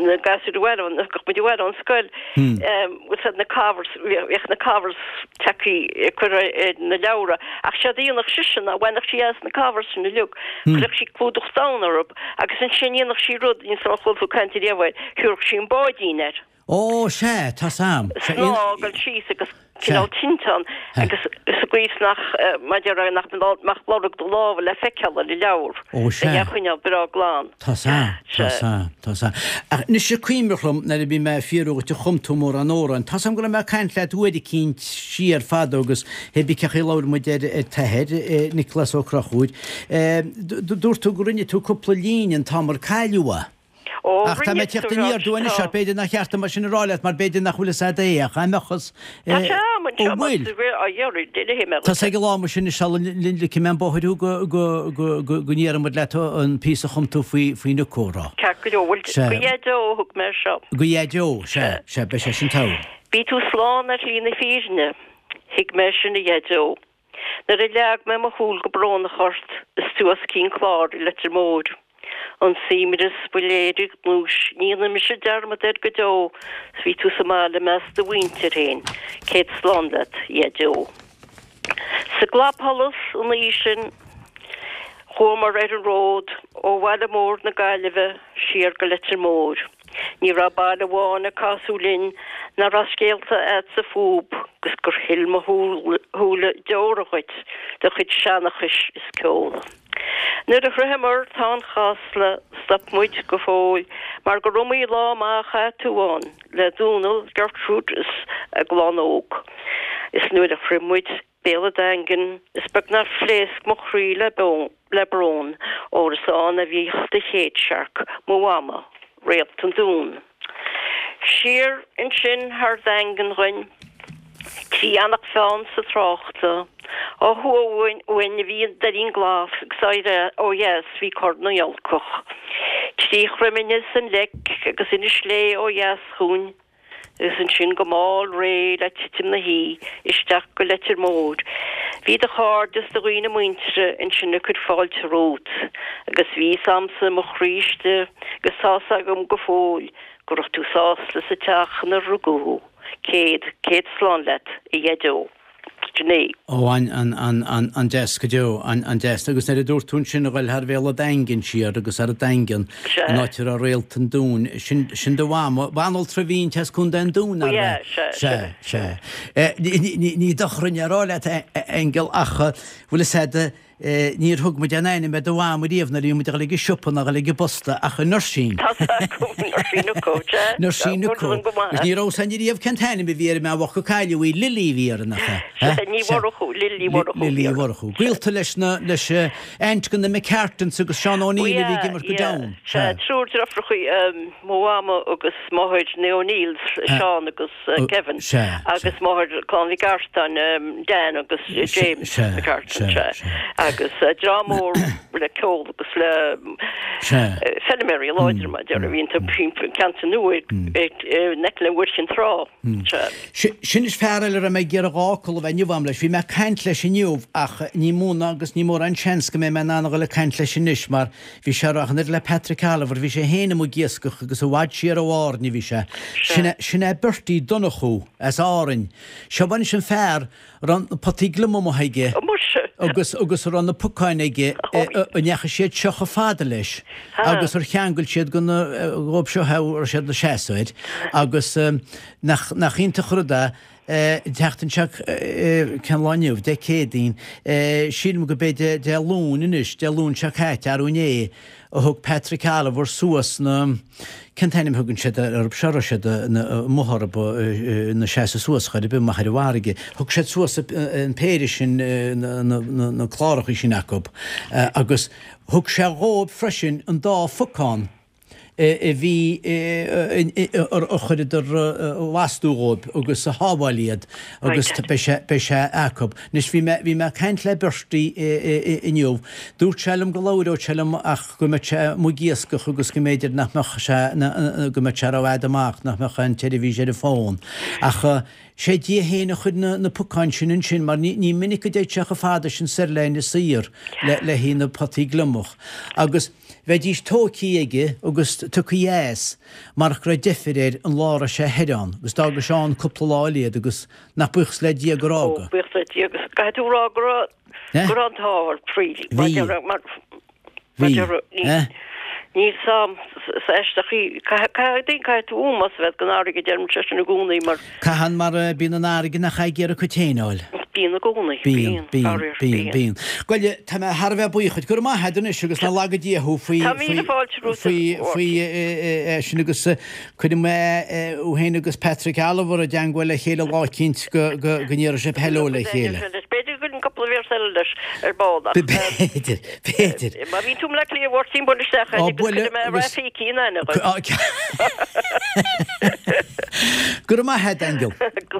na gasúir abhaile, thiocfadh muid abhaile ón scoil, bhfuil na covers, bhíodh na covers tagtha curtha ar na leabhra ach séard a dhéanfadh sise ná bhainfeadh sí as na covers sin uilig, chuirfeadh sí clúdach donn orthu agus ansin dhéanfadh sí rud, níl 's a'm ar chuala tú caint ariamh air, thabharfadh sí an báidín air. Ó, sea, tá's a'm. Snáth ag dul síos agus cineál tinteán agus sa gcaoi is nach, mar a déarfá, nach mbeadh lorg do lámha le feiceáil ar an leabhar. Ó, sea. É a choinneáil breá glan. Tá's a'm, tá's a'm, tá's a'm. Ach anois is cuimhneach liom nuair a bhí mé ag fiafraí dhuit ar chum tú mórán amhrán. Tá's a'm go raibh mé ag caint leat uair eicínt siar fadó agus hé bí cén chaoi a labhair muid ar t'athair, Nioclás Ó Conchúir. Dúirt tú go rinne tú cúpla líne an t-am ar cailleadh é. Ó, Ach tá mé ag teacht aniar aduaidh anois ort, b'fhéidir nach cheart dom é sin a rá leat mar b'fhéidir nach bhfuil fhios a'd é ach dá mbeadh fhios Tá sé a'm anseo Ó bhfuil? Á iarraidh, déanfaidh mé Tá sé ag an lá mar sin is sula ligfidh mé an bóthar thú go go go go go ndéarfaidh muid leat an píosa a chum tú faoi faoi Nico a rá. Ceart go leor, bhuel, Sea. go Dhaideo a thug mé seo. Go Dhaideo, sea, sea, beidh sé sin togha. Bhí tú slán ar shlí na fírinne, thuig mé sin a Dhaideo. Nuair a leag mé mo shúil go brónach ort is tú os cionn cláir i Leitir Móir. An suaimhneas ba léire gnúis ní dhéanfaidh mise dearmad air go deo 's bhí tú sa mbaile i measc do mhuintir féin céad slán leat a Dhaideo. Sa gclapsholas an oíche sin chuamar ar an ród ó bhaile mór na Gaillimhe siar go Leitir Móir. Ní raibh baile amháin ar casadh linn nach raibh scéalta a'dsa fúb 'gus gur shil mo shúile deora dhuit do chuid seanchais is ceoil. Nuair a shroicheamar Táin Chasla stop muid go fóill mar gur iomaí lá maith a chaith tú ann le Dónal, Gertrude is a gclann óg. Is nuair a shroich muid Béal an Daingin, is beag nár phléasc mo chroí le le brón, óir is ann a bhíodh do chéad searc, mo mhama, Réalt an Dúin. Siar ansin thar Daingean dhuinn, trí Eanach Mheáin sa tráchta, ó thuaidh uainn a bhí an Doirín Glas agus ó dheas bhí Corr na nGiolcach. Trí Chroimne is an Leic agus Inis Léith ó dheas chugainn, Agus ansin go mall réidh le titim na hoíche isteach go Leitir Móir. Bhí do chairde is do dhaoine muinteartha ansin ag cur fáilte romhat agus bhí fhios a'msa i mo chroí istigh agus tá's agam go fóill go raibh tú sásta sa teach inar rugadh thú. Céad, céad slán leat, a Dhaideo. 69. Ó, an-deas go deo, an-deas. Agus nuair a dúirt tú ansin a ghoil thar Bhéal an Daingin siar agus thar an Daingean, an áit a raibh Réalt an Dúin, sin, sin do mhama, banaltra a bhí inti as Contae an Dúin, nárbh ea? Sea, sea. Sea, sea. Ní dochar a rá leat, Aingeal, ach bhfuil fhios a'd, Níor thug muid aon ainm ar do mham riamh nuair a bhí muid ag dul ag an siopa ná dul ag an bposta ach an Nursín. Tá a fhios agam, Nursín Ucó, sea. Nursín Ucó. Agus ní raibh fhios a'inn riamh cén t-ainm a bhí ar an mbean bhocht gur cailleadh í, Lily a bhí uirthi, nach ea? Sea, Ní Mhurchú, Lily Mhurchú. Lily Mhurchú. Gaolta leis na, leis aint de na McCartans agus Seán O'Neill a bhí ag imirt go domhan. Sea, triúr deirfiúracha, mo mhama agus máthair na O'Neills, Seán agus. Kevin agus máthair Clann Mhic Artáin, Dan agus James McCartan, sea. Agus dream mór le ceol agus le feilméaraí láidre mar a déarfá a bhí iontu ceantar nua in aice le Mhuirchinn Trá, sea. Sin is fear eile a raibh mé ag iarraidh dhá fhocal a bheith inniu a'm leis. Bhí mé ag caint leis inniu ach ní mó ná agus ní mórán seans go mbeidh mé in ann a dhul ag caint leis anois mar Bhí sé ag rá an oiread le Patrick Oliver, bhí sé féin amuigh ag iascach agus i bhfad siar ó Árainn a bhí sé. Sin é, sin é Bertie Donnchú as Árainn. Seo anois an fear a raibh na potaí gliomaigh amuigh aige agus, agus a raibh na pocáin aige a ndeachaigh siad seo chomh fada leis agus ar cheangail siad go na, dhóibh seo a raibh siad ina seasamh air agus nach, nach iontach an rud é An tseachtain seo, cén lá inniu? Dé Céadaoin. Sílim go b'é Dé Luain anois, Dé Luain seo caite, arú inné, a thug Patrick Oliver suas na, cén t-ainm a thugann siad orthu seo, a raibh siad amuigh orthu ina seasamh suas chor ar bith amach ar an bhfarraige. Thug siad suas an péire sin, na cláracha sin acu agus thug sé dhóibh freisin an dá phocán a bhí a chuireadar lastú dhóibh agus a shábháil iad agus beidh sé beidh sé acu. Anois bhí mé bhí mé ag caint le Bertie inniu. Dúirt sé liom go labhródh sé liom ach go mbeadh sé amuigh ag iascach agus go mb'fhéidir nach mbeadh sé go mbeadh sé rófhada amach, nach mbeadh an tseirbhís ar an bhfón. Ach sé Dia féin a chuir na na pocáin sin ansin mar ní ní minic go dtéid sé chomh fada sin soir le Inis Oírr le le haghaidh na potaí gliomach. Agus. Bheidís tóigthí aige agus tugthaí as marach go raibh deifir air an lá a raibh sé thoir ann agus d'fhága sé ann cúpla lá eile iad agus nach buíochas le Dia gur Ó, fhága. buíochas le Dia agus caithfidh tú a rá go raibh, go raibh an t-ádh ort really. Mar Bhí. déarfá, mar, mar Bhí. déarfá, ní, Eh? níl 's a'm is aisteach í, caithfidh, caithfidh tú ómós a bheith don fharraige, deirimse sin i gcónaí mar. Caitheann mar bíonn an fharraige nach ag iarraidh a cuid féin a fháil. Bíonn i gcónaí. Bíonn, bíonn, bíonn, bíonn. Bhuel, tá mé thar a bheith buíoch duit. Go raibh maith agat anois agus nach laga Dia thú faoi, faoi, faoi, faoi é sin agus cuirfidh mé thú féin agus Patrick Oliver i dteangmháil le chéile lá eicínt go, go, go n-iarrfaidh sibh hello le chéile. B'fhéidir go gcuirfinn cúpla véarsa eile leis ar ball ach. B'fhéidir, b'fhéidir. Má bhíonn tú i mBleá Cliath a Mháirtín buail isteach agus cuirfidh mé Rafiki in aithne dhuit. Go raibh maith agat, Aingeal.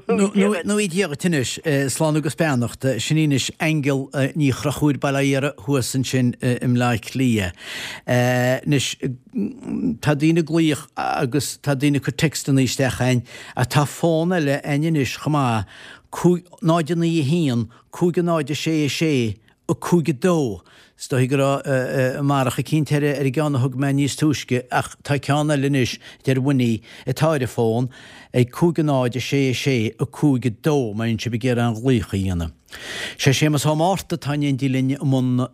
Go raibh Dia duit anois. Slán agus beannacht. Sin í anois Aingeal Ní Chonchúir Baile Átha Iara thuas ansin i mBleá Cliath. Anois, tá daoine ag glaoch agus tá daoine ag cur textanna isteach a'inn ach tá fón eile a'inn anois chomh maith, 5 0 9 1 5 0 6 6 5 2. Is dóigh go raibh marach eicínt ar an gceann a thug mé níos túisce ach tá ceann eile anois, deir Winnie, atá ar an bhfón, ag 5 0 6 6 5 2 má bhíonn sibh ag iarraidh aon ghlaoch a dhéanamh. Sé Séamus Ó Márta atá in éindí linn i mbun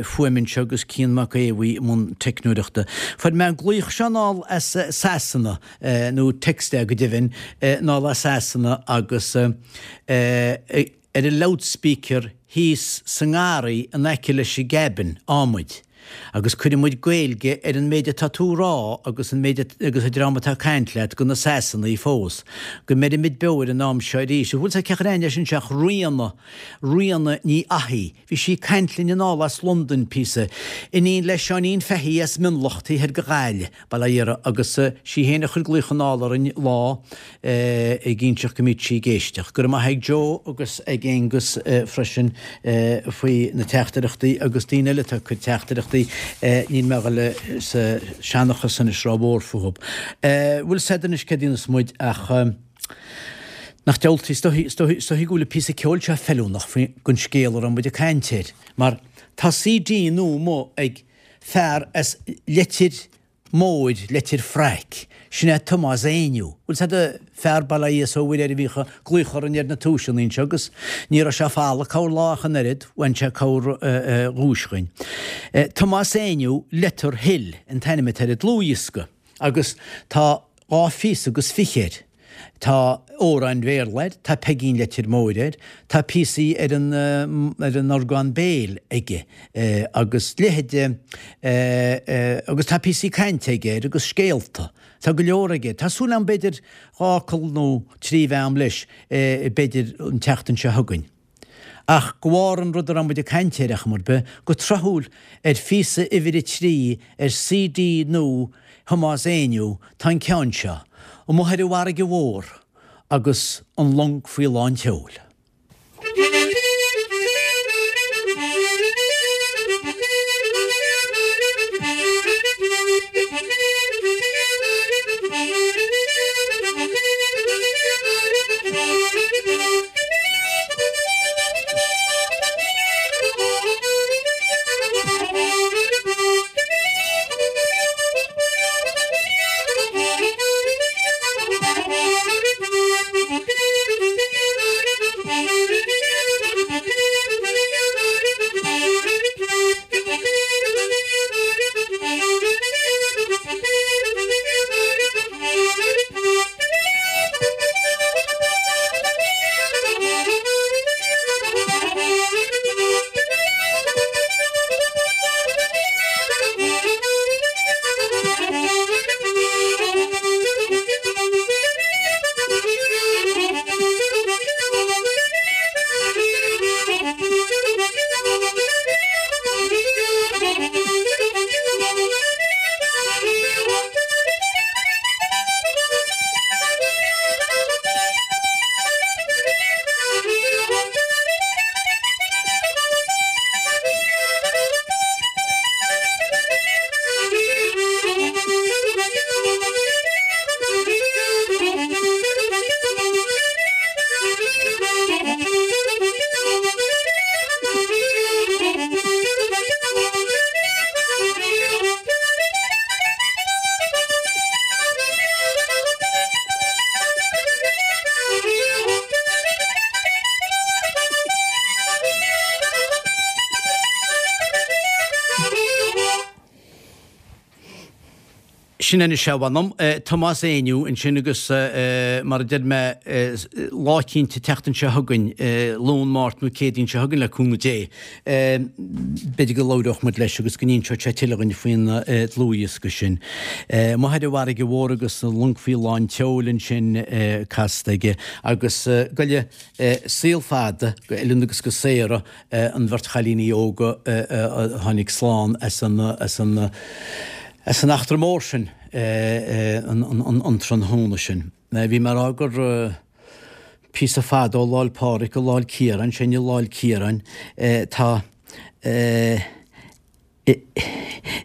fuaime anseo agus Cian Mac Aodha i mbun teicneoireachta. Fuair mé an glaoch seo anall as Sasana, nó text é go deimhin, anall as Sasana agus ar an loudspeaker thíos sa ngarraí in aice leis an gcabin atáimid agus cuireann muid Gaeilge ar an méid atá tú a rá agus an méid agus an dream atá ag caint leat go na Sasanaigh fós. Go mbeirimid beo ar an am seo arís. Bhfuil 's a'd cé chuir aithne leis anseo ach Ríona, Ríona Ní Fhathaigh. Bhí sí ag caint linn anall as Londain píosa. Iníon le Seáinín Fahey as Mionlach taobh thoir de Ghaillimh. Baile Átha Iara agus sí féin a chuir glaoch anall orainn lá ag inseacht go mbíodh sí ag éisteacht. Go raibh maith ag Joe agus ag Aengus freisin faoi na teachtaireachtaí agus daoine eile atá ag cur teachtaireachtaí. Níl mé a dhul sa seanchas anois rómhór fúthu. Bhfuil 's a'd anois céard a dhéanfas muid ach nach diabhaltaí, is dóichí, is dóichí, is dóichí go bhfuil an píosa ceoil seo feiliúnach faoi don scéal a raibh muid ag caint air mar tá CD nua amuigh ag fear as Leitir. Móir, Leitir Fraic. Sin é Tomás Éinniú. Bhfuil 's a'd, fear bail ó Dhia is ó Mhuire air a bhíodh ag glaoch orainn ar na tomhaiseanna anseo agus ní raibh sé falach corr lá ach an oiread, bhain sé corr dhuais dhuinn. Tomás Éinniú, Letter Hill an t-ainm atá ar an dlúthdhiosca agus tá dha phíosa agus fiche air. Tá amhráin Bhéarla air, tá Peigín Leitir Móir air, tá píosaí ar an ar an orgán béil aige agus leithéide agus tá píosaí cainte aige air agus scéalta. Tá go leor aige. Tá súil agam b'fhéidir dha fhocal nó trí bheith a'm leis b'fhéidir an tseachtain seo chugainn. Ach go bharr an rud a raibh muid ag caint air, ar chuma ar bith, go tráthúil, ar phíosa uimhir a trí ar CD nua Thomáis Éinniú tá an ceann seo, Amuigh ar an bhFarraige Mhór agus an Long Faoi Lán tSeoil. Sin anois é, a mh'anam. Tomás Éinniú ansin agus mar a deir mé lá eicínt an tseachtain seo chugainn, Luan, Máirt nó Céadaoin seo chugainn le cúnamh Dé, b'fhéidir go labhródh muid leis agus go n-inseodh sé tuilleadh dhuinn faoin dlúthdhiosca sin. Amuigh ar an bhFarraige Mhór agus an Long Faoi Lán tSeoil ansin casta aige agus go dté saol fada go Ellen agus go Sarah an bheirt chailíní óga a tháinig slán as an as an as an eachtra mór sin an tráthnóna sin. Bhí mé ag rá gur píosa fada ó Lá 'le Pádraig go Lá 'le Ciaráin, sin i Lá 'le Ciaráin tá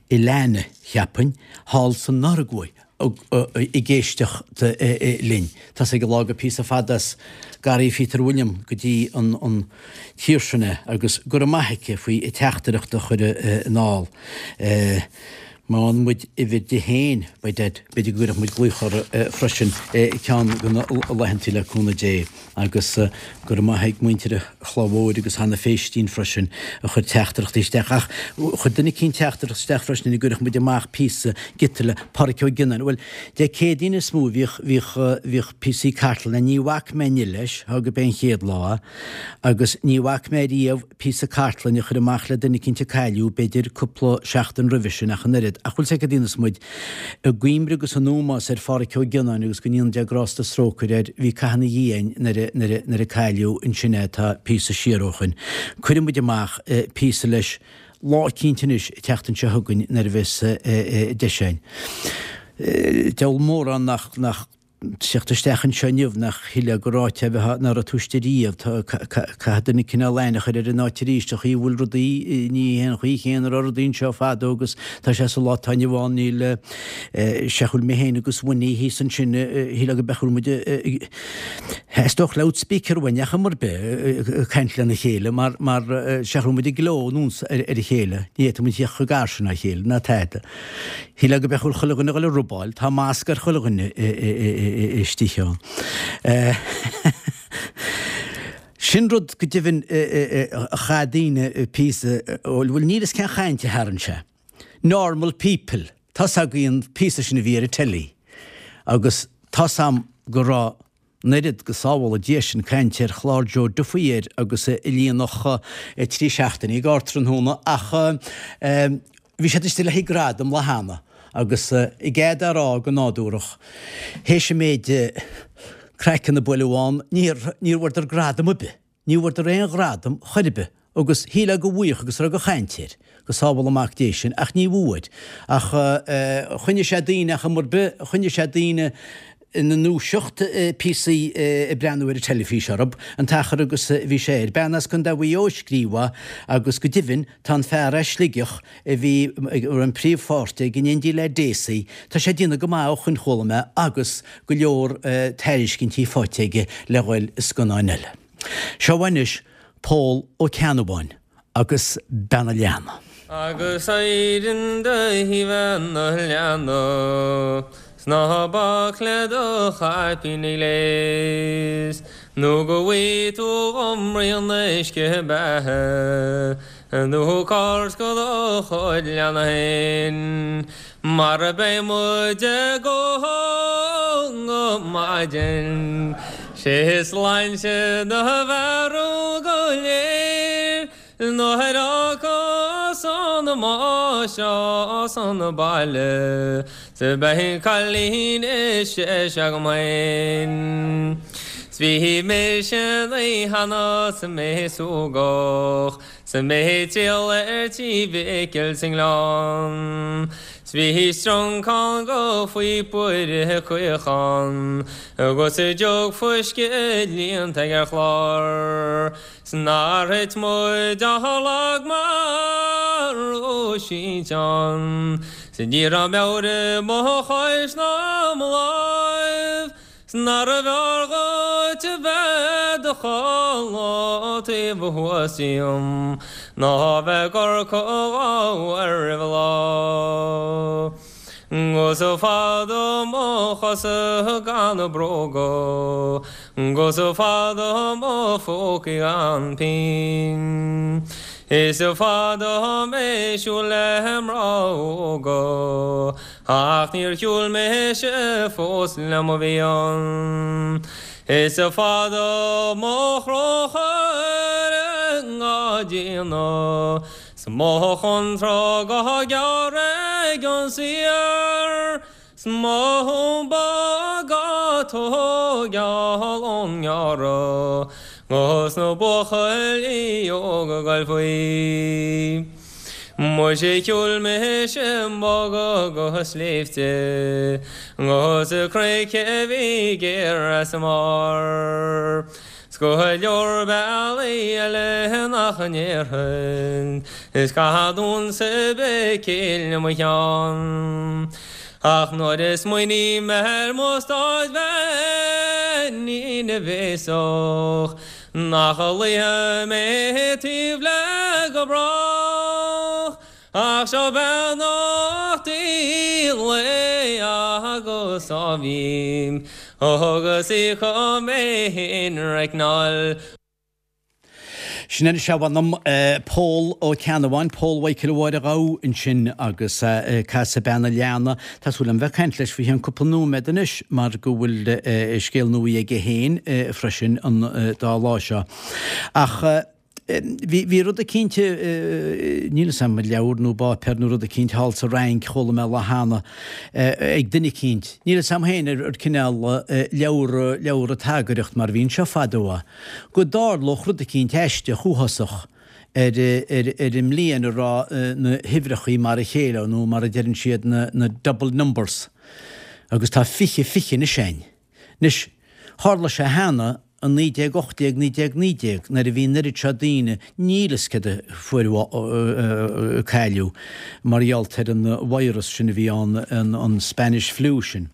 Ilana, cheapfainn, thall sa Noruaidh ag éisteacht linn. Tá's ag an lá gur píosa fada as Garraí Phíotair William go dtí an tír sin é agus go raibh maith aici faoi a teachtaireacht a chur anall. Má fhaigheann muid uimhir di féin, by dad, b'fhéidir go gcuirfeadh muid glaoch uirthi freisin ceann de na laethantaí le cúnamh Dé. Agus go raibh maith ag muintir an Chlaí Mhóir agus Hannah Phéistín freisin a chuir teachtaireachtaí isteach. Ach chuir duine eicínt teachtaireacht isteach freisin ina gcuirfeadh muid amach píosa giota le Páraic Ó Gionnáin. Bhuel, Dé Céadaoin is mó a bhíodh, bhíodh, bhíodh píosaí cartlainne. Ní bhfaca mé inniu leis, thá go b'é an chéad lá é, agus ní bhfaca mé riamh, píosa cartlainne a chur amach le duine eicínt a cailleadh, b'fhéidir cúpla seachtain roimhe sin ach an oiread. Ach bhfuil 's a'd cad a dhéanfas muid? I gcuimhne agus in ómós ar Pháraic Ó Gionnáin agus go ndéana Dia grásta is trócaire air, bhí caitheamh ina dhiaidh againn nuair a, nuair a, nuair a cailleadh ansin é, tá píosa siar ó shoin. Cuirfidh muid amach píosa leis lá eicínt anois, an tseachtain seo chugainn nuair a bheas deis againn. Diabhal mórán nach, nach. Teacht isteach anseo inniu nach shílfeá gur áit é a bheith ná raibh tú istigh riamh. Caithfidh duine cineál aithne a chur ar an áit arís, an chaoi a bhfuil rudaí, ní hé an chaoi chéanna a raibh rudaí anseo fadó agus tá sé sa lá atá inniu ann, níl, seach bhfuil mé féin agus Winnie thíos ansin, shílfeá go mbeadh bhfuil muid ag, theastódh loudspeaker uainn ach am ar bith ag caint lena chéile mar, mar seach bhfuil muid ag gleo anuas ar a chéile, ní fhéadfadh muid theacht chomh gar sin dá chéile ná tada. Shílfeá go mbeadh chuile dhuine ag dul a robáil, tá masc ar chuile dhuine istigh ann. Sin rud go deimhin a chaith daoine píosa, bhuel níl fhios cén chaint a tharraing sé. Normal People, tá's agaibh an píosa sin a bhí ar an telly agus tá's a'm go raibh an oiread, go sábhála Dia sinn, caint ar chlár Joe Duffy air agus a líonfadh 3 seachtainí Ardtráthnóna ach bhí siad istigh le haghaidh gradam lá cheana agus i gcead á rá go nádúrach théis an méid craiceann a buaileadh ann níor níor bhfuaireadar gradam ar bith. Ní bhfuaireadar aon ghradam chor ar bith agus shílfeá go bhfaigheadh agus raibh de chaint air, go sábhála Mac Dé sinn, ach ní bhfuair. Ach choinnigh sé daoine ach am ar bith, choinnigh sé daoine ina ndúiseacht píosaí ag breathnú ar an teilifís orthu, an t-achar agus a bhí sé air. Bean as Contae Mhaigh Eo a scríobh é agus go deimhin tá an fear as Sligeach a bhí a raibh an príomhpháirt aige in éindí le Dessie, tá sé ag déanamh go maith ó shoin chuala mé agus go leor tairiscintí faighte aige le dhul i scannáin eile. Seo anois Pól Ó Ceannabháin agus Bean an Leanna. Agus éirinn do bhean an leanna 's ná bac le do chaipín gléis nó go bhfaighidh tú dhom braon uisce beatha Nó cairt go do chuid leanna féin Mar beidh muid ag ól go maidin 'Sé sláinte do bhearú go léir Nuair a fhágfas an máistreás an baile 'S beidh cailín is deise agam féin 'S bhí mise an oíche cheana 's mé súgach 'S mé ag triall ar tí Mhicil sa nGleann 'S bhí stronncán go phíopa caoch ann Agus jug fuisce líonta ag ar chlár 'S nár thit muid ach lag marbh sínteán 'S ní raibh meabhair i mo chois ná mo láimh 'S nárbh fhearr dhuit a bheith 'do chodladh taobh thuas díom ná bheith ag amharc dhomh roimh an lá. 'Gus fada mo chosa gan bróga 'Gus fada mo phócaí gan pingin Is fada mé siúl le mná óga Ach níor shiúil mise fós le mo mhian Is fada mo chrochar á déanamh 'S mo chontrag á gearradh ag an saor 'S mo thumba á tógáil ón ngearradh 'Gus na buachaillí óga ag goil faoi. Muise shiúil mise boga go sléibhte 'Gus cnoic a bhí géar as a mbarr. 'S go leor bealaí eile nach ndéarfainn, is caithfead unsa béicíl i mo cheann. Ach nuair a smaoiním ar mo staid bheainín bhéasach, nach luífidh mé taobh léi go brách. Ach seo beannachtaí lae agus ádhaimh agus í chun mé féin reicneáil. Sin anois a mh'anam, Pól Ó Ceannabháin, Pól Mhichael Mháire Ghabha ansin agus casadh Bean an Leanna. Tá súil agam bheith ag caint leis faoi cheann cúpla nóiméad anois mar go bhfuil scéal nua aige féin freisin an dá lá seo. Ach. Bhí, bhí rud eicínt, níl 'fhios a'm, leabhar nó báipéar nó rud eicínt thall sa Fhrainc, chuala mé lá cheana, ag duine eicínt, níl 'fhios a'm féin ar cineál leabhar, leabhar tagaireacht mar a bhí anseo fadó é, go dtarlódh rud eicínt aisteach uafásach ar, ar, ar an mbliain a raibh na huimhreachaí mar a chéile nó mar a deireann siad na, na double numbers agus tá 20, 20 anois a'inn. Anois, tharla sé cheana i 1918, 1919 nuair a bhí an oiread seo daoine, níl fhios céard a fuair cailleadh mar gheall ar an virus sin a bhí ann, an Spanish Flu sin.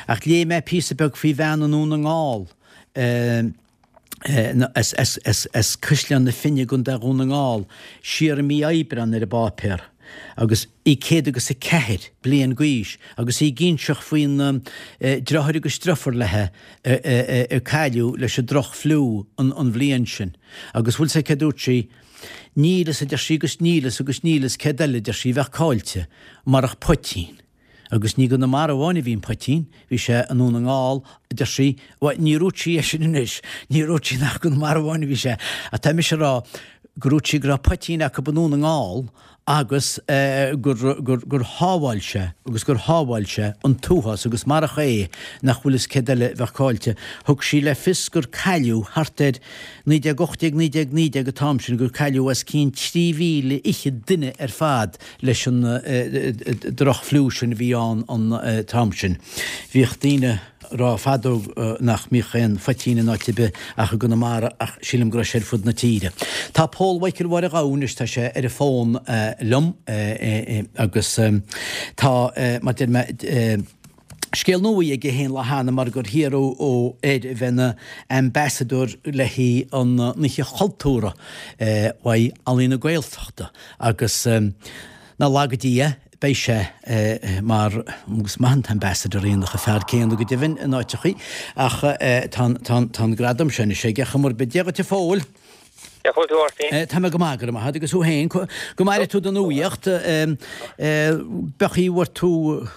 Ach léigh mé píosa beag faoi bhean i nDún na nGall, as Caisleán na Finne i gContae Dhún na nGall, siar i mí Aibreán ar an bpáipéar, agus í 104 bliain d'aois, agus í ag inseacht faoin driotháir agus driofúr léithe a cailleadh leis an droch-fhliú an bhliain sin. Agus bhfuil 'fhios a'd céard dúirt sí? Níl fhios, a deir sí, agus níl fhios agus níl fhios céard eile, a deir sí, a bheadh caillte, marach poitín. Agus ní i gConamara amháin a bhí an poitín, bhí sé i nDún na nGall, a deir sí, bhuel, ní dhúirt sí é sin anois, ní dhúirt sí nach i gConamara amháin a bhí sé, ach tá mise a rá gur dhúirt sí go raibh poitín acu i nDún na nGall agus gur, gur, gur shábháil sé, agus gur shábháil sé an t-uafás agus marach é nach bhfuil fhios céard eile a bheadh caillte. Thug sí le fios gur cailleadh thart ar 1918, 1919 an t-am sin, gur cailleadh os cionn 3,000 duine ar fad leis an droch-fhliú sin a bhí ann an t-am sin. Bhíodh daoine ag rá fadó nach mbíodh aon phoitín in áit ar bith ach i gConamara ach sílim go raibh sé ar fud na tíre. Tá Pól Mhichael Mháire Ghabha anois, tá sé ar an bhfón liom agus tá, mar deir mé, Scéal nua aige féin lá cheana mar gur hiarradh air a bheith ina ambasadóir le haghaidh an Oíche Chultúrtha uaidh Ealaín na Gaeltachta agus ná laga Dia beidh sé mar, agus maith an t-ambassador é an fear céanna go deimhin in áiteachaí, ach tá an gradam seo anois aige, chuma ar bith. Dia dhuit a Phóil. Cén chaoi a bhfuil tú a Mháirtín? Tá mé go maith, go raibh maith agat, agus thú féin? Go maire tú don nuaíocht. B'fhéidir go bhfuair tú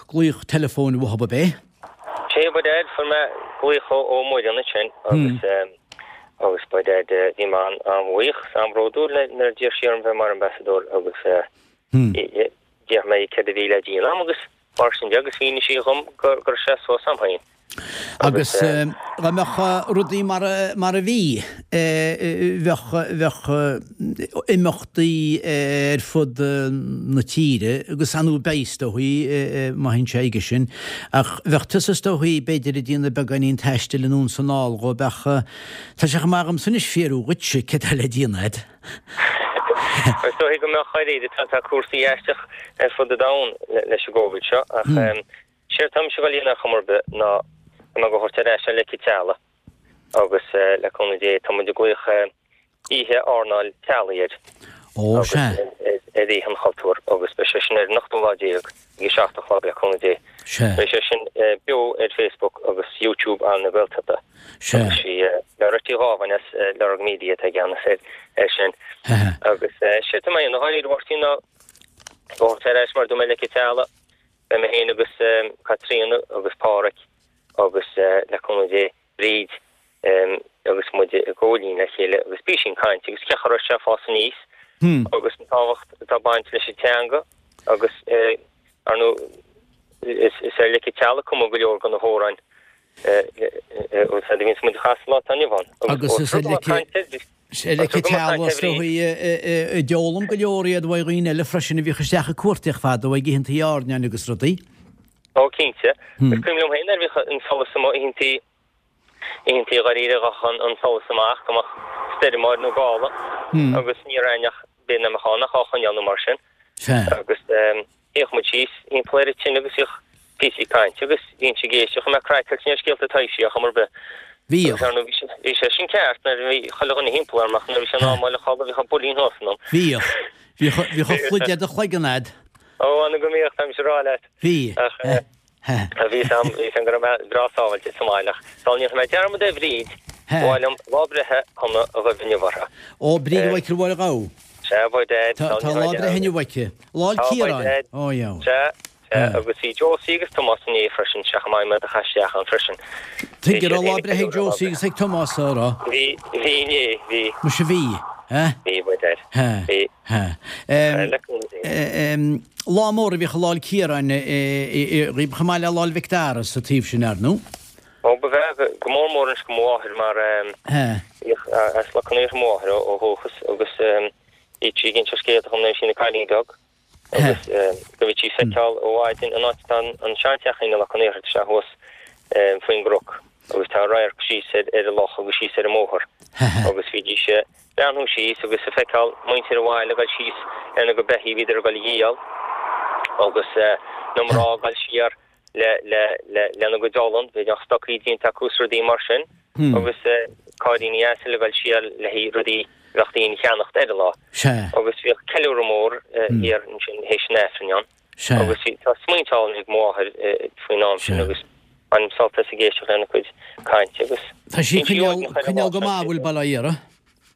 glaoch teileafóin uathub ab é? Sea, by dad, fuair mé glaoch ó Mhuireann ansin agus agus by dad bhí mé an-bhuíoch is an-bhródúil nuair a d'iarr sí orm bheith mar ambasadóir agus d'fhiafraigh mé céard a bhí le déanamh a'm agus mar sin de agus mhínigh sí dhom go raibh sé suas a'm féin. Agus dá mbeadh rudaí mar a bhí, bheadh, bheadh imeachtaí ar fud na tíre agus ar ndóigh beidh is dóichí, má théann sé aige sin, ach bheadh tusa is dóichí b'fhéidir ag déanamh beagáinín taistil anonn is anall dhó, bheadh, tá sé chomh maith agamsa anois fiafraí dhuitse céard tá le déanamh a'd. Is dóichí go mbeadh dáiríre, tá cúrsaí aisteach ar fud an domhain leis an gCovid seo ach Séard tá mise ag dul a dhéanamh ar chuma ar bith ná tá mé ag dul a thabhairt ar ais ar Leic an Teallaigh agus le cúnamh Dé tá muid ag glaoch Oíche Airneáil Teaghlaigh air Ó, agus sea. ar Oíche an Chultúir agus beidh sé sin ar an ochtú lá déag ag a 7 a chlog le cúnamh Dé. Sea. Beidh sé sin beo ar Facebook agus YouTube Ealaín na Gaeltachta. Sea. Agus sí Loretta Uí Dhábháin as Lorg Media atá i gceannas air sin. Agus séard tá mé a dhéanamh dháiríre a Mháirtín ná ag thabhairt ar ais mar a dúirt mé Leic an Teallaigh. Beidh mé féin agus Caitríona agus Páraic agus, le cúnamh Dé, Bríd agus muid i gcomhlíon le chéile agus píosín cainte agus cén chaoi a raibh sé ag fás aníos agus an tábhacht atá ag baint leis an teanga agus ar ndóigh is ar Leic an Teallaigh a cumadh go leor de na hamhráin a bhíonns muid a chasadh lá atá inniu ann. Agus is ar Leic Is ar Leic an Teallaigh is dóichí a d'fhoghlaim go leor iad uaidh dhaoine eile freisin a bhíodh isteach ag cuartaíocht fadó ag oícheantaí airneáin agus rudaí. Ó cinnte. Is cuimhin liom féin nuair a bhíodh an solas amuigh oícheantaí, oícheantaí dháiríre ghabhadh an solas amach go mbeadh stoirm air nó gála agus ní raibh aon neach b'fhéidir nach mbeadh ann ach á choinneáil nó mar sin. Agus Shuíodh muid síos thimpeall ar an tine agus bhíodh píosaí cainte agus bhínnse ag éisteacht, bhí mé craiceáilte ar scéalta taibhsí ar chuma ar bith. Bhíodh. Agus ar ndóigh bhí sé, bhí sé sin ceart nuair a bhí chuile dhuine thimpeall orm ach nuair a bhí sé in am a dhul a chodladh bhíodh an builín thuas ionam. Bhíodh. Bhíodh, bhíodh an phluid ar do chloigeann a'd. Ó, an go mbíodh, táimse ag rá leat. Bhí. Ach eh, bhí a fhios a'm, bhí a fhios a'm go raibh mé breá sábháilte sa mbaile ach sula ndéanfaidh mé dearmad ar Bhríd, ba mhaith liom lá breithe shona a ghuí inniu uirthi. Ó, Bríd Mhichael Mháire Ghabha. Sea, by dad. Tá lá breithe inniu aici. Lá 'le Ciaráin. Ó, yeah. Sea, sea, agus bhí Josie agus Tomás inné freisin, sea, chomh maith, mé do chaith isteach ann freisin. Tuige raibh lá breithe ag Josie agus ag Tomás, a raibh? Bhí, bhí inné, bhí. Muise bhí, eh? Bhí, by dad. Bhí. Lá mór a bhíodh i Lá 'le Ciaráin dhaoib chomh maith le Lá 'le Mhic Dara sa taobh sin, ar ndóigh. Ó, ba bhreá, go mór mór anois go mo mháthair mar bhíodh as Loch an Iarthair mo mháthair ó dhúchas agus bhíodh sí ag inse scéalta dhom nuair a bhí sí ina cailín beag agus go mbíodh sí ag feiceáil i bhfad an áit atá an seanteachín i Loch an Iarthair, tá sé thuas faoin gcnoc. Agus tá radharc síos ar ar an loch agus síos ar an mbóthar. Agus bhídís ag breathnú síos agus ag feiceáil muintir an bhaile ag dul síos lena gcuid beithígh, bhíodar ag dul a dhíol agus na mná ag dul siar le le le lena gcuid olann, bhí na stocaí déanta acu is rudaí mar sin agus cairríní asail ag dul siar le haghaidh rudaí a bheadh daoine a cheannacht ar an lá. Agus bhíodh ceiliúradh mór thiar ansin théis an Aifrinn ann. Sea. Agus bhí, tá smaointe álainn ag mo mháthair faoin am sin agus bainim sult as ag éisteacht lena cuid cainte agus Tá sí ag coinneáil, coinneáil go maith, bhfuil Baile Átha Iartha?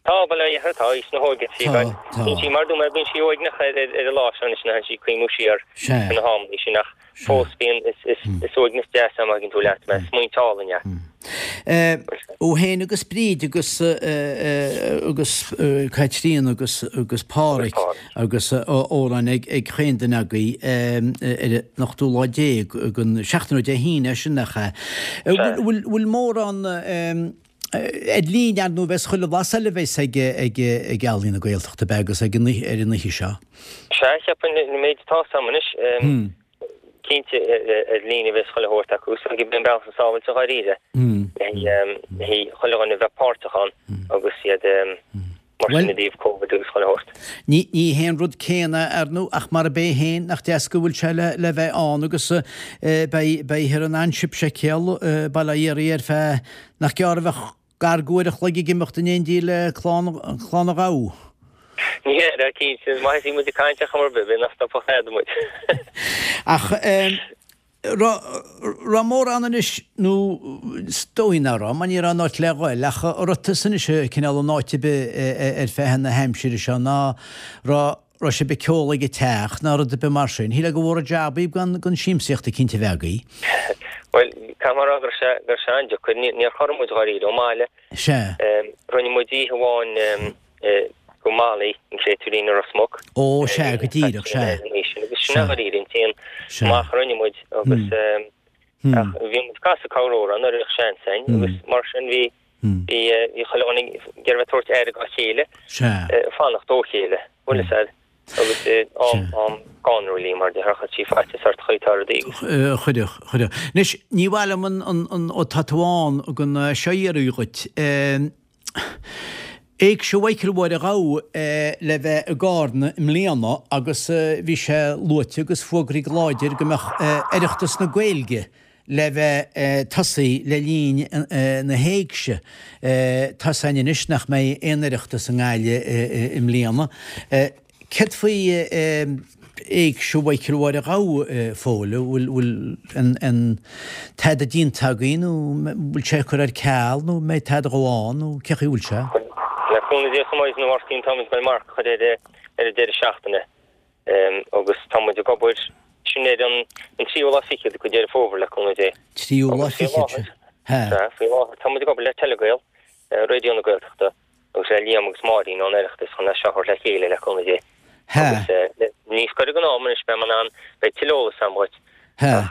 Tá, Baile Átha Iartha, tá, aois na hóige sí, Tá, tá. Bíonn sí, mar dúirt mé, bíonn sí uaigneach ar, ar, ar an lá seo anois, nuair atánn sí ag cuimhniú siar Sea. ar na hamannaí sin ach fós bíonn, is, is, is uaigneas deas é má thuigeann tú leat mé, smaointe álainn é. Thú féin agus Bríd agus agus Caitríona agus agus Páraic agus amhráin ag ag chaon duine agaibh ar an ochtú lá déag den seachtain ó Dé hAoine é sin nach ea? Bhfuil bhfuil mórán ar líne ar ndóigh bheas chuile bhlas eile a bheas ag ag ag Ealaín na Gaeltachta ab ea agus ag an ar an oíche seo? Sea, cheapfainn an méid atá 's a'm anois. Cinnte, ar líne a bheas chuile shórt acu, so gurb é an bealach is sábháilte dháiríre le haghaidh chuile dhuine a bheith páirteach ann agus iad mar sin i dtaobh Covid agus chuile shórt. Ní hé an rud céanna, ar ndóigh, ach mar a b'é féin, nach deas go bhfuil sé le bheith ann agus beidh ar an An Ship Séipéal, Baile Átha Iarthaigh ar feadh nach gearr a bheadh Gar d'uair a chloig ag imeacht in éindí le Clann an Ghabha. Ní hea, cinnte, is maith is muid ag caint ar chuma ar bith, b'fhéidir nach stopfadh tada muid. Ach raibh mórán anois, nó is dóigh nach raibh, mar ní raibh aon áit le dhul, ach an raibh tusa anois cineál in áit ar bith ar feadh na haimsire seo, ná raibh raibh sibh ag ceol ag an teach ná rud ar bith mar sin. Shílfeá gur mhór an jab í gan siamsaíocht eicínt a bheith agaibh. Bhuel, caithfidh mé a rá go raibh sé, go raibh sé an-deacair. Ní, níor chorraigh muid dháiríre ón mbaile. Sea. Rinne muid oíche amháin go Molly, an Créatúirín i Ros Muc. Ó, sea, go díreach, sea. Agus sin é dháiríre an t-aon amach a rinne muid agus ach bhí muid ag casadh corr-amhrán nuair a bhíodh seans againn agus mar sin bhí, Bhí chuile dhuine ag iarraidh bheith ag tabhairt aire dá chéile, ag fanacht ó chéile, bhfuil fhios a'd, agus am, am scanrúil í mar déarfá, chuir sí faitíos ort chaoi tá rudaí. Chuirfeadh, chuirfeadh. Anois, ní mhaith liom an, an, an, ó tá tú ann, gan seo a iarraidh dhuit. Éigse Mhichael Mháire Ghabha le bheith i gCarna i mbliana agus bhí sé luaite agus fógraithe go láidir go mbeadh Oireachtas na Gaeilge le bheith tosaithe le linn na héigse. Tá 's a'inn anois nach mbeidh aon Oireachtas i nGaillimh i mbliana. Céard faoi Éigse Mhichael Mháire Ghabha, a Phóil? Bhfuil an tada déanta agaibh nó bhfuil sé curtha ar ceal nó mbeidh tada dhó ann nó cé chaoi bhfuil sé? Le cúnamh Dé chomh maith is na Mháirtín táimid ag dul marc a chur ar an deireadh seachtaine. Agus tá muid ag obair, sin ar an tríú lá fichead de Deireadh Fómhair, le cúnamh Dé. Tríú lá fichead, sea. Sea, faoi láthair tá muid ag obair le Telegael, Raidió na Gaeltachta, agus le Liam agus Máirín ón Oireachtas chun é seo a thabhairt le chéile, le cúnamh Dé. Sea. Agus níos gaire don am anois, beidh mé in ann, beidh tuilleadh eolais agam dhuit. Sea. Ach,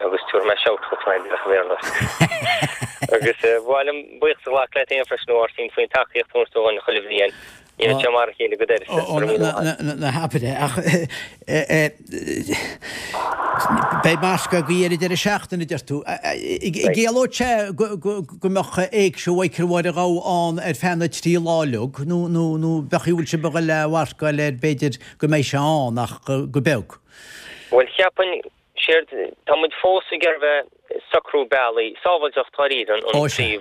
agus tabharfaidh mé shout dhuit mar a bhéarla. Agus ba mhaith liom buíochas a ghlacadh leat féin freisin, a Mháirtín, faoin tacaíocht a thabhairt dúinn chuile bhliain. Ní raibh sé mar a chéile go d'uireasa. Ó, ná habair é, ach beidh marc agaibh ar an deireadh seachtaine, a deir tú. Ciallódh sé go mbeadh Éigse Mhichael Mháire Ghabha ann ar feadh na dtrí lá uilig, nó bheadh, bhfuil sibh ag dul a mharcáil air b'fhéidir go mbeidh sé ann ach go beag? Bhuel, cheapfainn Séard, tá muid fós ag iarraidh bheith ag socrú bealaí, sábháilteacht dháiríre an príomh,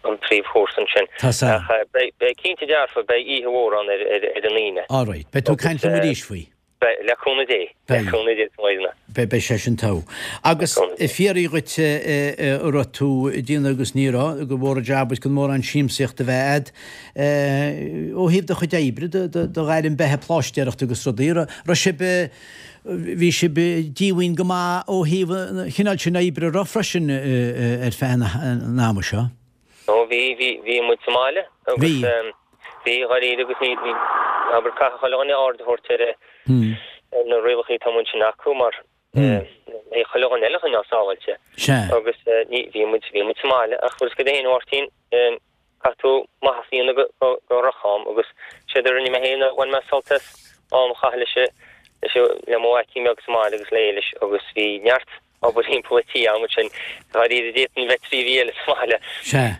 an príomhchúrsa ansin. Tá sea. Ach beidh, beidh cinnte dearfa, beidh oíche mhór ann ar, ar, ar an Aoine. All right. Beidh tú ag caint liom arís faoi. Beidh, le cúnamh Dé. Le cúnamh Dé, a Mháirtín. Beidh, beidh sé sin togha. Agus fiafraí dhuit an raibh tú ag déanamh agus ní raibh, gur mhór an jab duit gan mórán siamsaíochta a bheith a'd. Ó thaobh do chuid oibre, do, do, do ghairm beatha pláistéireachta agus rudaí, raibh sibh, Bhí sibh díomhaoin go maith ó thaobh an chineáil sin oibre a raibh freisin ar feadh an ama seo. Ó bhí, bhí, bhí muid sa mbaile agus bhí, bhí dháiríre agus ní, ní, abair caithfidh chuile dhuine aird a thabhairt ar ar na rialacha atá amuigh ansin acu mar é chuile dhuine eile a choinneáil sábháilte. Sea. Agus ní, bhí muid, bhí muid sa mbaile ach bhfuil 'fhios agat féin a Mháirtín, Caithfidh tú maitheas a dhéanamh do dhroch-am agus séard a rinne mé féin ná bhain mé sult as am a chaitheamh leis leis le mo mhaicín beag sa mbaile agus le Éilis agus bhí neart. Obair thimpeall an tí agam ansin. Dáiríre d'fhéadfainn bheith 3 mhí eile sa bhaile. Sea.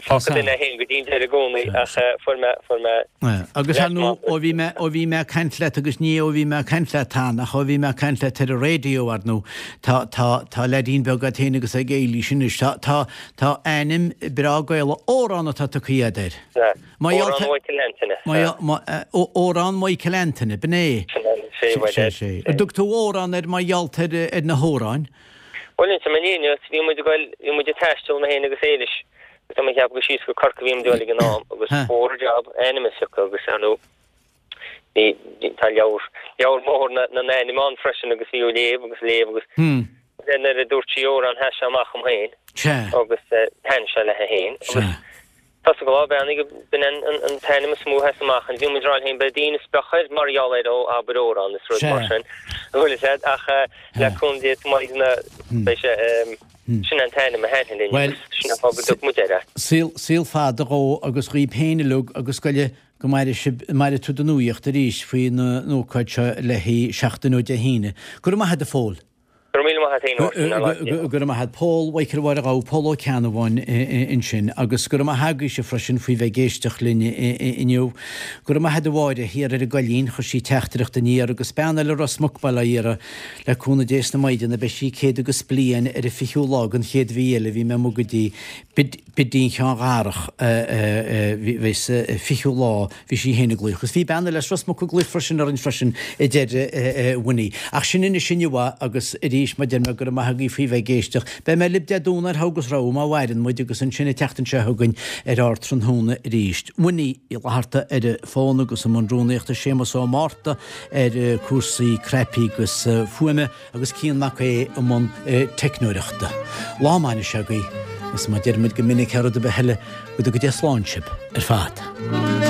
Fágfaidh duine é féin go dtí an deireadh i gcónaí ach fuair mé, fuair mé Agus ar ndóigh, ó bhí mé, ó bhí mé ag caint leat agus ní ó bhí mé ag caint leat ann ach ó bhí mé ag caint leat ar an raidió ar ndóigh, tá, tá, tá leaidín beag agat féin agus ag Éilís anois. Tá, tá, tá ainm breá Gaelach, Órán atá tugtha agat air. Sea. Órán Mhichael Antaine. Órán Mhichael Antaine, b'in é. Sin é, sé, bhuel, Sé, sé. An dtug tú Órán air mar gheall ar na hamhráin? Bhuel, inseoidh mé an fhírinne duit, bhí muid ag goil, bhí muid ag taisteal, mé féin agus Éilis, agus tá mé ag ceapadh gur síos go Corcaigh a bhí muid ag goil ag an am, agus b'fhuar an jab ainm a phiocadh agus, ar ndóigh, bhí, tá leabhar, leabhar mór na n-ainm ann freisin agus bhí á léamh agus léamh agus nuair a dúirt sí Órán sheas sé amach dom féin agus thaithin sé léi féin agus Tá sa ghlá beannaigh b'in an t-ainm is mó a sheas amach and bhí muid ag rá linn féin beidh daoine ag speachadh air mar gheall air ó abair Órán is rud mar sin an bhfuil fhios a'd ach le cúnamh Dé maidin beidh sé sin an t-ainm a thaithin linn agus sin an fáth go dtug muid air é. Saol saol fada dhó agus dhaoib féin uilig agus go go maire sibh maire tú don nuaíocht arís faoin ócáid seo le haghaidh seachtain ó Dé hAoine. Go raibh maith a'd a Phóil. Go raibh míle maith a't fhéin a Mháirtín, ar lean. Go raibh maith a't. Pól Mhichael Mháire Ghabha, Pól Ó Ceannabháin ansin. Agus go raibh maith agaibhse freisin faoi bheith ag éisteacht linn inniu. Go raibh maith a'd a Mháire thiar ar an gCoillín, chuir sí teachtaireacht aniar agus bean eile Ros Muc Baile Átha Iartha, le cúnamh Dé is na Maighdeana beidh sí 100 agus bliain ar an 20ú lá den chéad mhí eile, bhí mé amuigh go dtí Bidín Sheáin Dharach bhí sa 20ú lá bhí sí féin ag glaoch. Agus bhí bean eile as Ros Muc ag glaoch freisin orainn freisin a deir Winnie. Ach sin anois inniu agus arís mar deir mé go raibh maith agaibh faoi bheith ag éisteacht. Beidh mé libh Dé Domhnaigh ar Thogh agus Rogha má mhaireann muid agus ansin an tseachtain seo chugainn ar Ardtráthnóna arís. Winnie Uí Fhlatharta ar an bhfón agus i mbun rúnaíochta Séamus Ó Márta ar cúrsaí cnaipí agus fuaime. agus Cian Mac Aodha i mbun teicneoireachta. Lá maith anois agaibh, agus mar a deir muid go minic thar rud ar bith eile, go dtuga Dia slán sibh ar fad.